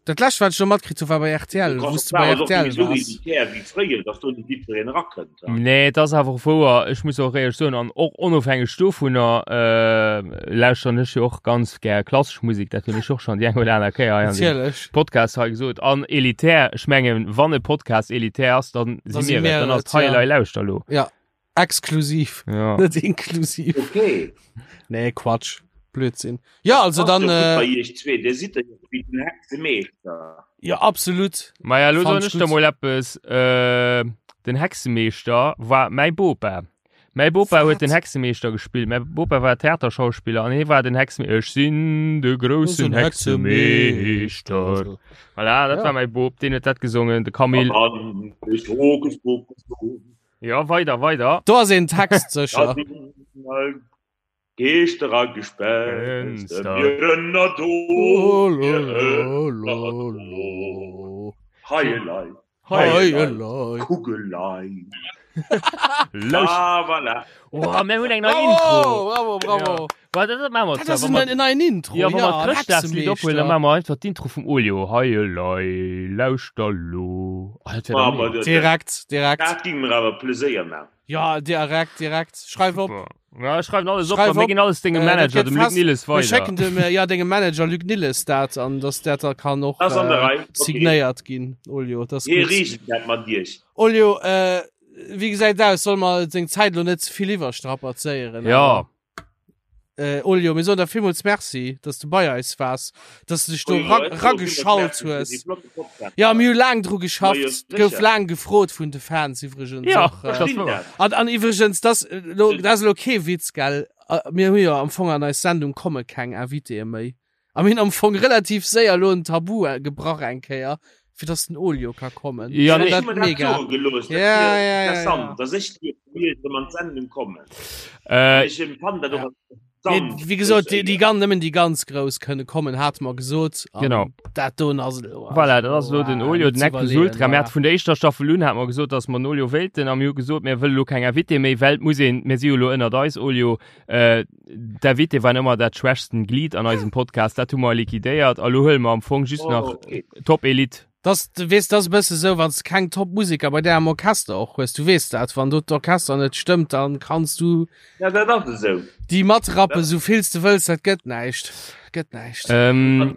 Dat lescht wat ech do matkritt hu war bei RTL, wou s du bei RTL wars. Nee, et ass awer och wouer, ech muss och éierlech soen, an och onofhängeg dovunner äh, lauschteren ech jo och ganz gär klassesch Musek, dat hunn ech och schonn déi eng oder aner Kéier hei an dem Natierlech. Podcast hei gesot. An elitär, ech mengen, wann e Podcast elitär ass, dann Da si mir et, dann ass et, ja. Hei Elei Lauschter lo. Ja, exklusiv, Ja. net inklusiv. Okay. Nee, Quatsch. Blödsinn. Ja, also dann, Bei äh, iech zwee, Dir sidd jo wéi den Hexemeeschter. ja, absolut. Maja, lo Fand soen ich ech der gut. mol eppes, äh, den Hexemeeschter war mäi Bopa. Mäi Bopa huet den Hexemeeschter gespillt. Mäi Bopa war Theaterschauspiller an hie war den Hexemeeschter. Ech sinn de groussen Hexemeeschter. Voilà, dat Ja. war mäi Bop, deen huet dat gesongen, de Camille. An ich Hokus Pokus. Ja, weider, weider. Do ass een Text sécher. Da sinn all Geeschter a Gespenster, mir ënner do, mir ënner do. Heielei, heielei, Kugelei. Lauscht. Ah, voilà. Oh, mir hunn eng nei Intro. Bravo, bravo. Ja. Wa, dat maache mer Dat zwar, ass wa mer- en neien Intro. Ja, wa mer ja, d'Chrëschtdagslidd ophuelen, dann maache mer einfach d'Intro vum Olio. Heielei, lauschter lo. Oh, dat wär Ah, doch ma mega. dat- Direkt, direkt. Dat ging mir awer Pleséier maachen. Ja, direkt, direkt. Schreif op. Super. Ja, ech schreiwen alles op, Schreif a mir op. ginn alles dengem Äh, dat Manager, gëtt dem Luc fest. Nilles, Mir weider. schécken dem, äh, ja, dengem Manager Luc Nilles dat an dass dat da kann och Ass an der äh, Rei. Okay. signéiert ginn. Olio, das Hie gutt. reegelt dat mat Iech. Olio, äh, wéi gesäit aus? Soll mer seng Zäit lo net ze vill iwwerstrapazéieren? Ja. awer? Äh, Olio, mir soen der villmools Merci, dass du bei eis waars, dass du dech do ra rageschalt hues. Ja, mir hu laang dru geschafft, Ma jo, gouf sécher. laang gefrot vun de Fans iwwregens Ja, och. Äh, das ass wouer. an, an iwwregens, das, äh, lo, das ass lo kee Witz, gell? Äh, Mir hu jo am Fong an eis Sendung komme keng Invitéë méi. A mir hunn am Fong relativ séier lo en Tabu äh, gebrach eng Kéier, fir dass den Olio ka kommen. Ja, Ich nee. fand dat mega. Gelooss, Ja, ja, ja, interessant, dass ech dir mir an d'Sendung kommen. Äh, Ech empfand dat och Ja. als Mee, interessant. Wéi gesot, déi, déi ganz, nëmmen déi ganz Grouss kënne kommen, hate mer gesot. An Genau. Dat doen ass elo. Voilà, dat ass elo den also, Olio, net den ze Nec plus iwwerleeën, Ultra. Mir voilà. hate vun der éischter Staffel un hate mer gesot, dass mer den Olio wéilten a mir hu gesot, mir wëlle lo keng Invité méi, well et muss een, mir si jo elo ënnert eis, Olio, äh, D'Invité waren ëmmer dat schwächsten Glied an eisem Podcast, dat hu mer liquidéiert a lo huele mer am Fong just Oh, nach okay. Top Elite. Das, du weess, das ass e bësse sou, wann s de keng Top-Museker bei där am Orchester och hues, du weess dat, wann do d'Orchester net stëmmt, dann kanns du Ja, dat ass esou. déi matrappen, sou vill s de wëlls, dat gëtt näischt, gëtt näischt. Ähm,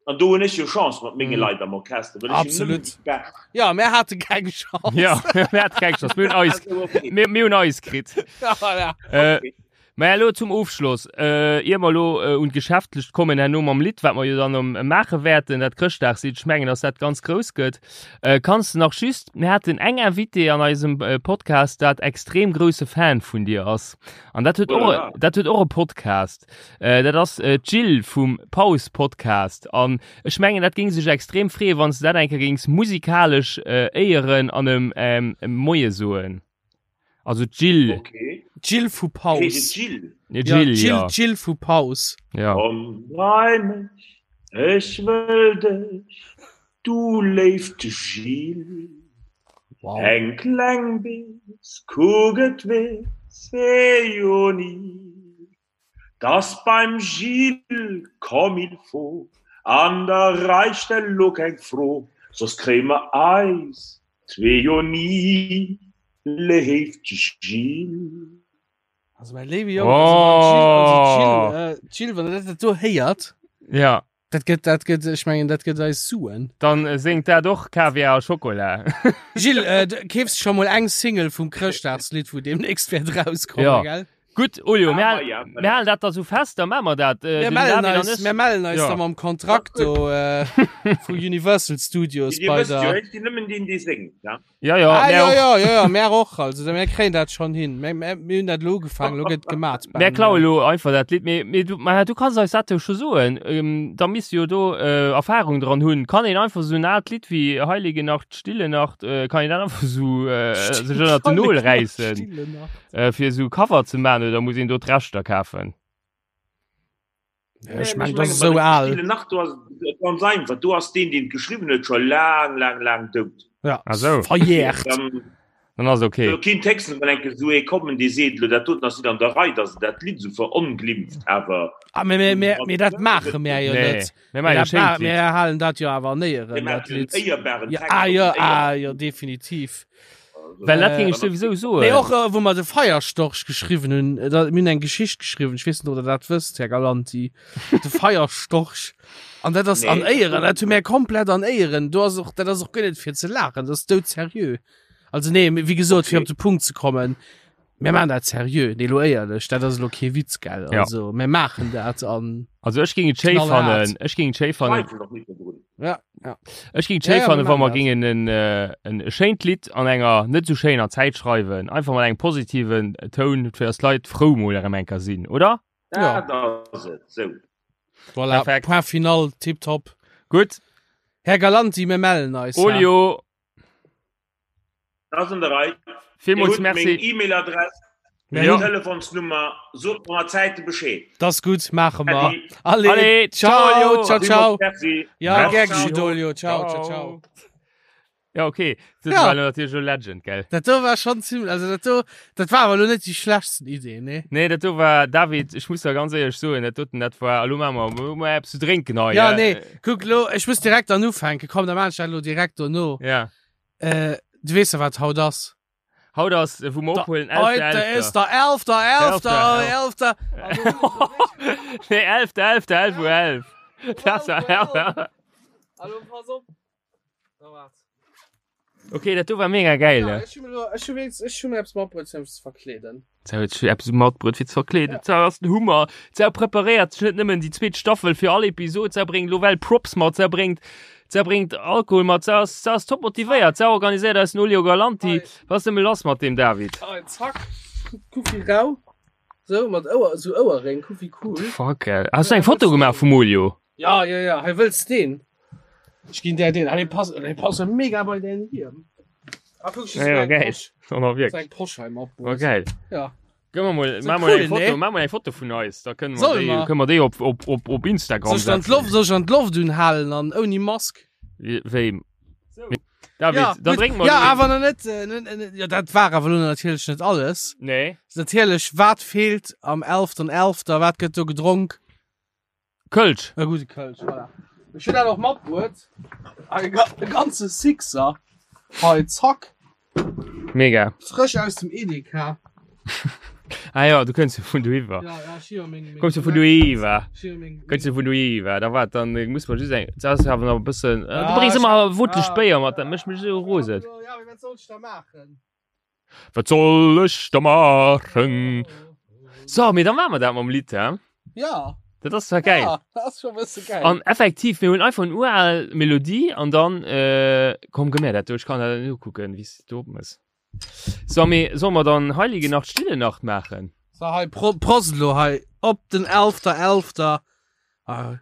An do hunn ech jo Chance mat menge Mm. Leit am Orchester, well ech hunn Absolut. nëmmen déi Bescht. Ja, mär hate keng Chance. ja, mir hate keng Chance, mir hunn eis, Also, okay. mir, mir hunn eis kritt. Ja, voilà. Äh, Okay. Mä elo zum Ofschloss, äh, ier mer elo äh, un d'Geschäftlecht kommen, herno mam Lidd, wat mer jo dann um, maache wäerten, dat Chrëschtdagslidd, ech mengen, dass dat ganz grouss gëtt, äh, kanns de nach just, mir haten eng Invitée an eisem äh, Podcast, dat extrem grousse Fan vun dir ass. An dat huet och, Voilà. dat huet och e Podcast. Äh, dat ass äh, d'Jill vum Paus Podcast. An ech mengen, dat géing sech extrem freeën, wann s de dat eng Kéier géings musikalesch äh, éieren an em ähm, Moie soen. Also d'Jill. Okay. D'Jill vu Hey, Paus. Jill. Ja, Ja, Jill, Jill, ja. Jill vu Paus. ja. Komm bei mech, ech wëll dech, du léift Jill. Wow. Eng kleng Bees, kuck et weess ee jo ni. Dass beim Gilles comme il faut an der Rei stell lo keng Fro, soss kréie mer eis zwee jo ni, léift Gilles. Also mäi léiwe Jong, also wann d'Jill, also d'Jill, Oh. äh, d'Jill, wann der dat do héiert, Ja, dat gëtt, dat gëtt, ech mengen, dat gëtt eis Suen. dann äh, séngt dat och Kaviar a Schokola. Gilles, äh, du keefs scho mol eng Single vum Chrëschtdagslidd, wou demnächst wäert rauskommen, Ja. gell? Gutt, Olio, mir, Ah, hal- ja, mir halen dat da sou fest, da maache mer dat. Äh, Mir den mellen David an eis, ech- mir mellen eis Ja. da mam Kontrakt do äh, vu Universal Studios Dir bei wësst jo, der. ech sinn nëmmen deen, dee séngt, ja? Ja, ja, Ah, mir ja, och. ja, ja, ja, mär och. Also, mir kréien dat schon hin. Mir, mir, mir hunn dat lo ugefaangen, lo gëtt gemat. Mär klaue lo einfach dat Lidd. Mee, mee du, ma du kanns eis dat jo scho soen. Ähm, da misst du jo do äh, Erfahrung dran hunn. Kann een einfach sou en aalt Lidd wéi Heilige Nacht, Stille Nacht, äh, kann een dat einfach sou äh, sech ënnert den Nol räissen, Stille Nacht. äh, fir sou Cover ze man oder muss een do d'Rechter kafen? Ja, ech meng, dat ass esou al. Stille Nacht, do ass et ganz einfach. Do ass deen, deen et geschriwwen huet, scho laang, laang, laang dout. Ja, Ah, sou. verjährt. Dann Dann ass okay. do kinnt héchstens mol eng Kéier esou ee kommen, dee seet, elo dat doten ass net an der Rei, dass en dat Lidd esou veronglimft, awer Ah, mee, mee, mee, mee dat maache mär jo Nee, net. mir Mir maache jo dat schéin ma d'Lidd. mir halen dat jo awer an Éieren, Mir dat maachen en Lidd. éierbaren Ja, Text ah, op jo, en éierbaren ah, jo, definitiv. Well dat ging Äh, ech souwisou soen. Nee, och äh, wou mer de Feierstorch geschriwwen hunn, äh, da, mir hunn eng Geschicht geschriwwen, ech weess net, ob der dat wësst, Här Galanti. De Feierstorch. An dat ass Nee. an Éieren, dat hu mir komplett an Éieren. Do ass och, dat ass och guer net fir ze laachen, dat ass doudseriö. Also nee, wéi gesot, fir Okay. op de Punkt ze kommen, mir maachen dat seriö. Nee, lo éierlech, dat ass lo kee Witz, gell? Ja. Also, mir maachen dat an Also ech ging et schéi Knallhart. fannen, ech ging et schéi fannen. Zweifel doch nicht dodrun. ja. Ja. Ech ging Ja, schéi ja, fannen, mir wa mer maachen gingen en, äh, en schéint Lidd an enger net sou schéiner Zäit schreiwen, einfach mat engem positiven Toun, fir dass d'Leit frou mol erëm eng Kéier sinn, oder? Ja. Dat ass et, sou. Voilà, Perfekt. Point final, tipptopp. Gutt, Här Galanti, mir mellen eis. hä? Olio, Dat ass an der Rei. Dir villmools hutt meng Merci. E-Mail-Adress, Mir meng Ja. hunn- Telefonsnummer. Sot mer mat Zäite Bescheed. Dat ass gutt, maache mer. Äddi. Allez, Allez, ciao, ciao, Olio. ciao, ciao. Villmools Merci. Ja, Merci. gär geschieht, Olio. Ciao, ciao, ciao. Ja, okay. Dat Ja. war lo natierlech e Legend, gell? Dat do war schon ziemlich, also dat do, dat war awer lo net déi schlechtsten Idee, ne? Nee, dat do war, David, ech muss der ganz éierlech soen, dat doten, dat war, elo maache mer, elo maache mer eppes zu drénken hei. Ja, äh, nee, kuck lo, ech muss direkt dann ufänken, komm, da maan ech dat lo direkt dono. Ja. Äh, du weess ja, wat haut ass. Haut ass, äh, wou mer Da- ophuelen, Heute 11.11. ist der 11. 11. 11. Nee, 11. 11. 11 Uhr 11. Das war, 11. Hallo, pass op. Okay, dat do war mega geil. Ja, ne? ech hu mir lo, ech hu wéinst, ech hu mir eppes matbruet fir mech ze verkleeden. Zou huet sech eppes matbruet fir ze verkleeden. Ja. Zou ass den Hummer. Zou preparéiert sech net nëmmen déi zweet Staffel fir all Episod, zou bréngt lo well Props mat, zou bréngt, zou bréngt Alkohol mat, zou ass, zou ass top motivéiert, zou organiséiert eis den Olio Galanti. Hei. Was ass nëmme lass mat deem David? Hei, zack, kuck wéi rau. Sou, mat Ouer, sou Ouerréng, kuck wéi cool. Fuck, ey. Has du eng Foto gemaach vum Olio? Ja, ja, ja, hei wëlls deen? Ech ginn där deen. Ah, dee passt, dee passt jo mega bei däin Hiem. Ah, kuck, ech Ja, ja, geil. Posch, Oh, na, wirklich. eng Posch hei Oh, matbruet. geil. Ja. Gëmm mer mol, So mach mol cool, eng Foto, ne? mach mol eng Foto vun eis. Da kënnen mer Soll déi, mer? kënnen mer déi op, op, op, op Instagram Soll ech dann setzen. d'Loft, soll ech dann d'Loft unhalen an ouni Mask? Wéi? David, Ja, dann gut. drénken mer Ja, lo- awer nach net, äh, net, net, ja, dat war awer lo natierlech net alles. Nee. Natierlech, wat feelt am 11.11., wat gëtt do gedronk? Kölsch. E gudde Kölsch, voilà. Ech hunn dat och matbruet. E ga- e ganze Sixer. Hei, zack. Mega. Frësch aus dem Edeka. Ah ja, du kënns jo vun doiwwer. Ja, ja, ech hu jo meng, meng Kommst du vun doiwwer? Ech hu jo meng, Kënns du vun doiwwer? Da wat, dann äh, muss man just eng, das ass awer nach e bëssen, äh, du Ja, bréngs ech- ëmmer wutlech ja. Béier mat, dat mécht mech esou rosen. Ja, mee wat soll ech da maachen? Wat soll ech da maachen? So, mee da maache mer dat mam Lidd, hä? Ja. Dat ass zwar geil. Ja, dat ass scho bësse geil. An effektiv, mir hunn einfach en ural Melodie an dann, äh, komm, gëmm mir dat do, ech kann dat net ukucken, wéi s du do opmëss. So, mee solle mer dann Heilige Nacht, Stille Nacht maachen? So, hei, Pro Prost elo hei op den 11.11. Ah.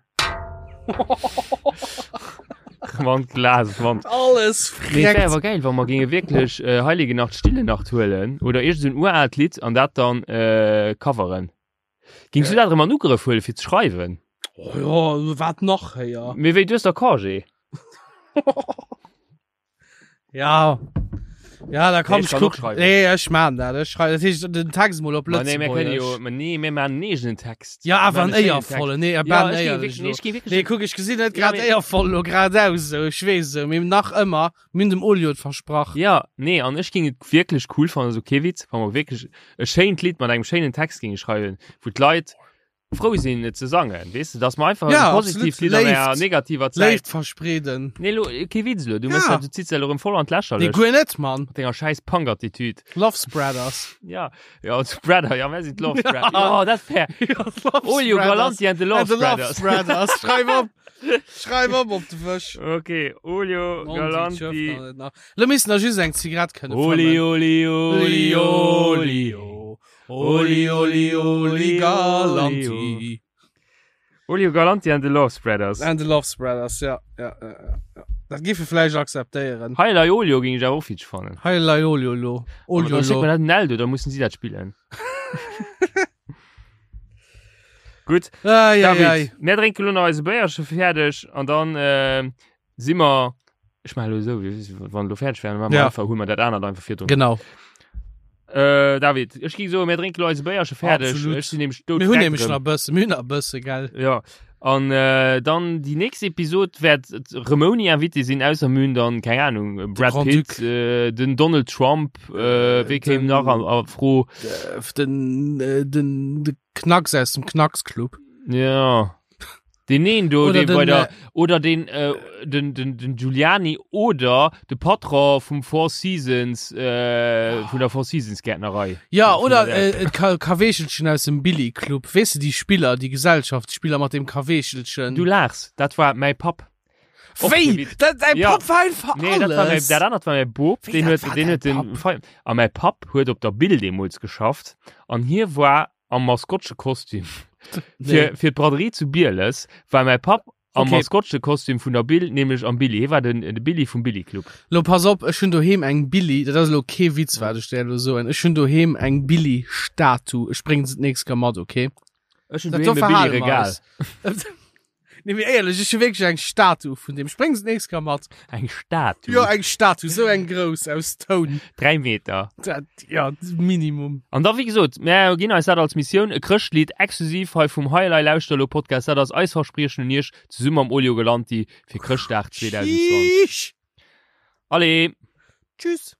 Mann, Glas, Mann. Alles Mee et wär freckt. awer geil, wa mer géinge wierklech äh, Heilige Nacht, Stille Nacht huelen oder iergend esou en uraalt Lidd an dat dann äh, coveren. Gings du dat erëm an Ugrëff huelen, fir ze schreiwen? Oh ja, wat nach héier? Mee wéi, du hues da Congé? Ja. Ja, da komm Nee, ich ich kann och guck. schreiwen. Nee, ech man dat. Ech schreiwen. Dat heescht, den Text mol op Ma nee, mir kënne jo, Lëtzebuergesch. ma nee, mir maachen en eegenen Text. Ja, awer Mir en maachen e schéinen Text. éiervollen. Nee, e Ja, ben ech géing éierlech wierklech, nee, lo. ech géing wierklech Nee, kuck, ech gesinn net Ja, grad mee- éiervoll lo grad aus, sou. Ech weess sou, mee nach ëmmer, mir hunn dem Olio et versprach. Ja, nee, an ech géing et wierklech cool fannen, sou kee Witz, wa mer wierklech e schéint Lidd mat engem schéinen Text géinge schreiwen, wou d'Leit frou sinn et ze sangen, weess de, dass mer einfach Ja, e positiivt absolut. Lidd an enger Léift. negativer Zäit. Léift verspreeden. Nee, lo, kee Witz lo, du mëss Ja. dat, du zitts dat lo erëm voll an Nee, d'Lächerlecht guer net, Mann. mat denger schäiss Punk-Attitüd. Love Spreaders. Ja, ja, Spreader, ja, mir sinn d'Love Spreader. Ja, dat wär. Olio Spreaders. Galanti and the Love And the Love Spreaders. Spreaders. Schreif op. Schreif op op de Wësch. Okay, Olio Galanti. Lo missten der just eng Zigarett kënne Oli, fëmmen. oli, oli, oli. Oli, oli, oli, Galanti. Olio Galanti and the Love Spreaders. And the Love Spreaders, ja. ja, ja, ja. Dat géife vläicht akzeptéieren. Heilei Olio ging ich awer och fitsch fannen. Heilei Olio lo. Aber Olio dann schickt lo. man dat den Eldo, da mussen sie dat spillen. Gutt, Ei, ei, David, ei. mir drénken lo nach eise Béierche fäerdeg an dann äh, si mer ech maache lo esou, wéi wann lo fäerdeg wären, maache mer Ja. einfach, huele mer dat anert einfach virdrun. Genau. Äh, David, ech ging soen, mir drénken lo eise Béierche fäerdeg. Absolut. Ech sinn nämlech Mir hunn nämlech doudfreck nach e bëssen, mir hunn nach e bësse, gell? Ja. An äh, dann déi nächst Episod wäert rëm ouni Invité sinn, ausser mir hunn dann, keng Ahnung, Brad Grand Pitt, Duc. äh, den Donald Trump, äh, wee kéim Den- nach an, a Fro? Äh, Den, äh, den, de Knacks aus dem Knacksclub. Ja. Den een do, Oder dee den, bei der, äh, oder den, äh, den, den, den Giuliani oder de Patron vum Four Seasons, äh, vun der Four Seasons Gärtnerei. Ja, Vun oder der- äh, et Kaweechelchen aus dem Billy Club. Weess de, déi Spiller, déi Gesellschaftsspiller mat dem Kaweechelchen. Du laachs, dat war mäi Papp. Och Wéi? kee Witz. Dat, dein Ja. Papp war einfach Nee, dat war mäi, alles. dat anert war mäi Bop, Wéi, deen dat huet, war deen dein huet den Papp? Feier. A mäi Papp huet op der Bill deemools geschafft an hie war am Maskottchekostüm. Nee. Fir, fir d'Braderie zu Bieles war mäi Papp am Okay. Maskottchekostüm vun der Bill, nämlech am Billy. Hie war den, de Billy vum Billy Club. Lo pass op, ech hunn doheem eng Billy, dat ass elo kee Witz wat ech der elo soen, ech hunn doheem eng Billy Statue, ech bréngen se d'nächst Kéier mat, okay? Ech hunn Dat doheem do e verhale Billy mer Regal. eis. Nee, mee éierlech, ech hu wierklech eng Statue vun deem. Ech bréngen se d'nächst Kéier mat. Eng Statue? Jo, eng Statue, sou eng grouss aus Toun. 3 Meter. Dat, ja, Minimum. An da, wéi gesot, mär ginn eis dat als Missioun, e Chrëschtlidd exklusiv hei vum Hei Elei Lauschter Elo Podcast. Dat ass eis Verspriechen un iech, zesumme mam Olio Galanti fir Chrëschtdag 2020. Tschüss. Allez! Tschüss.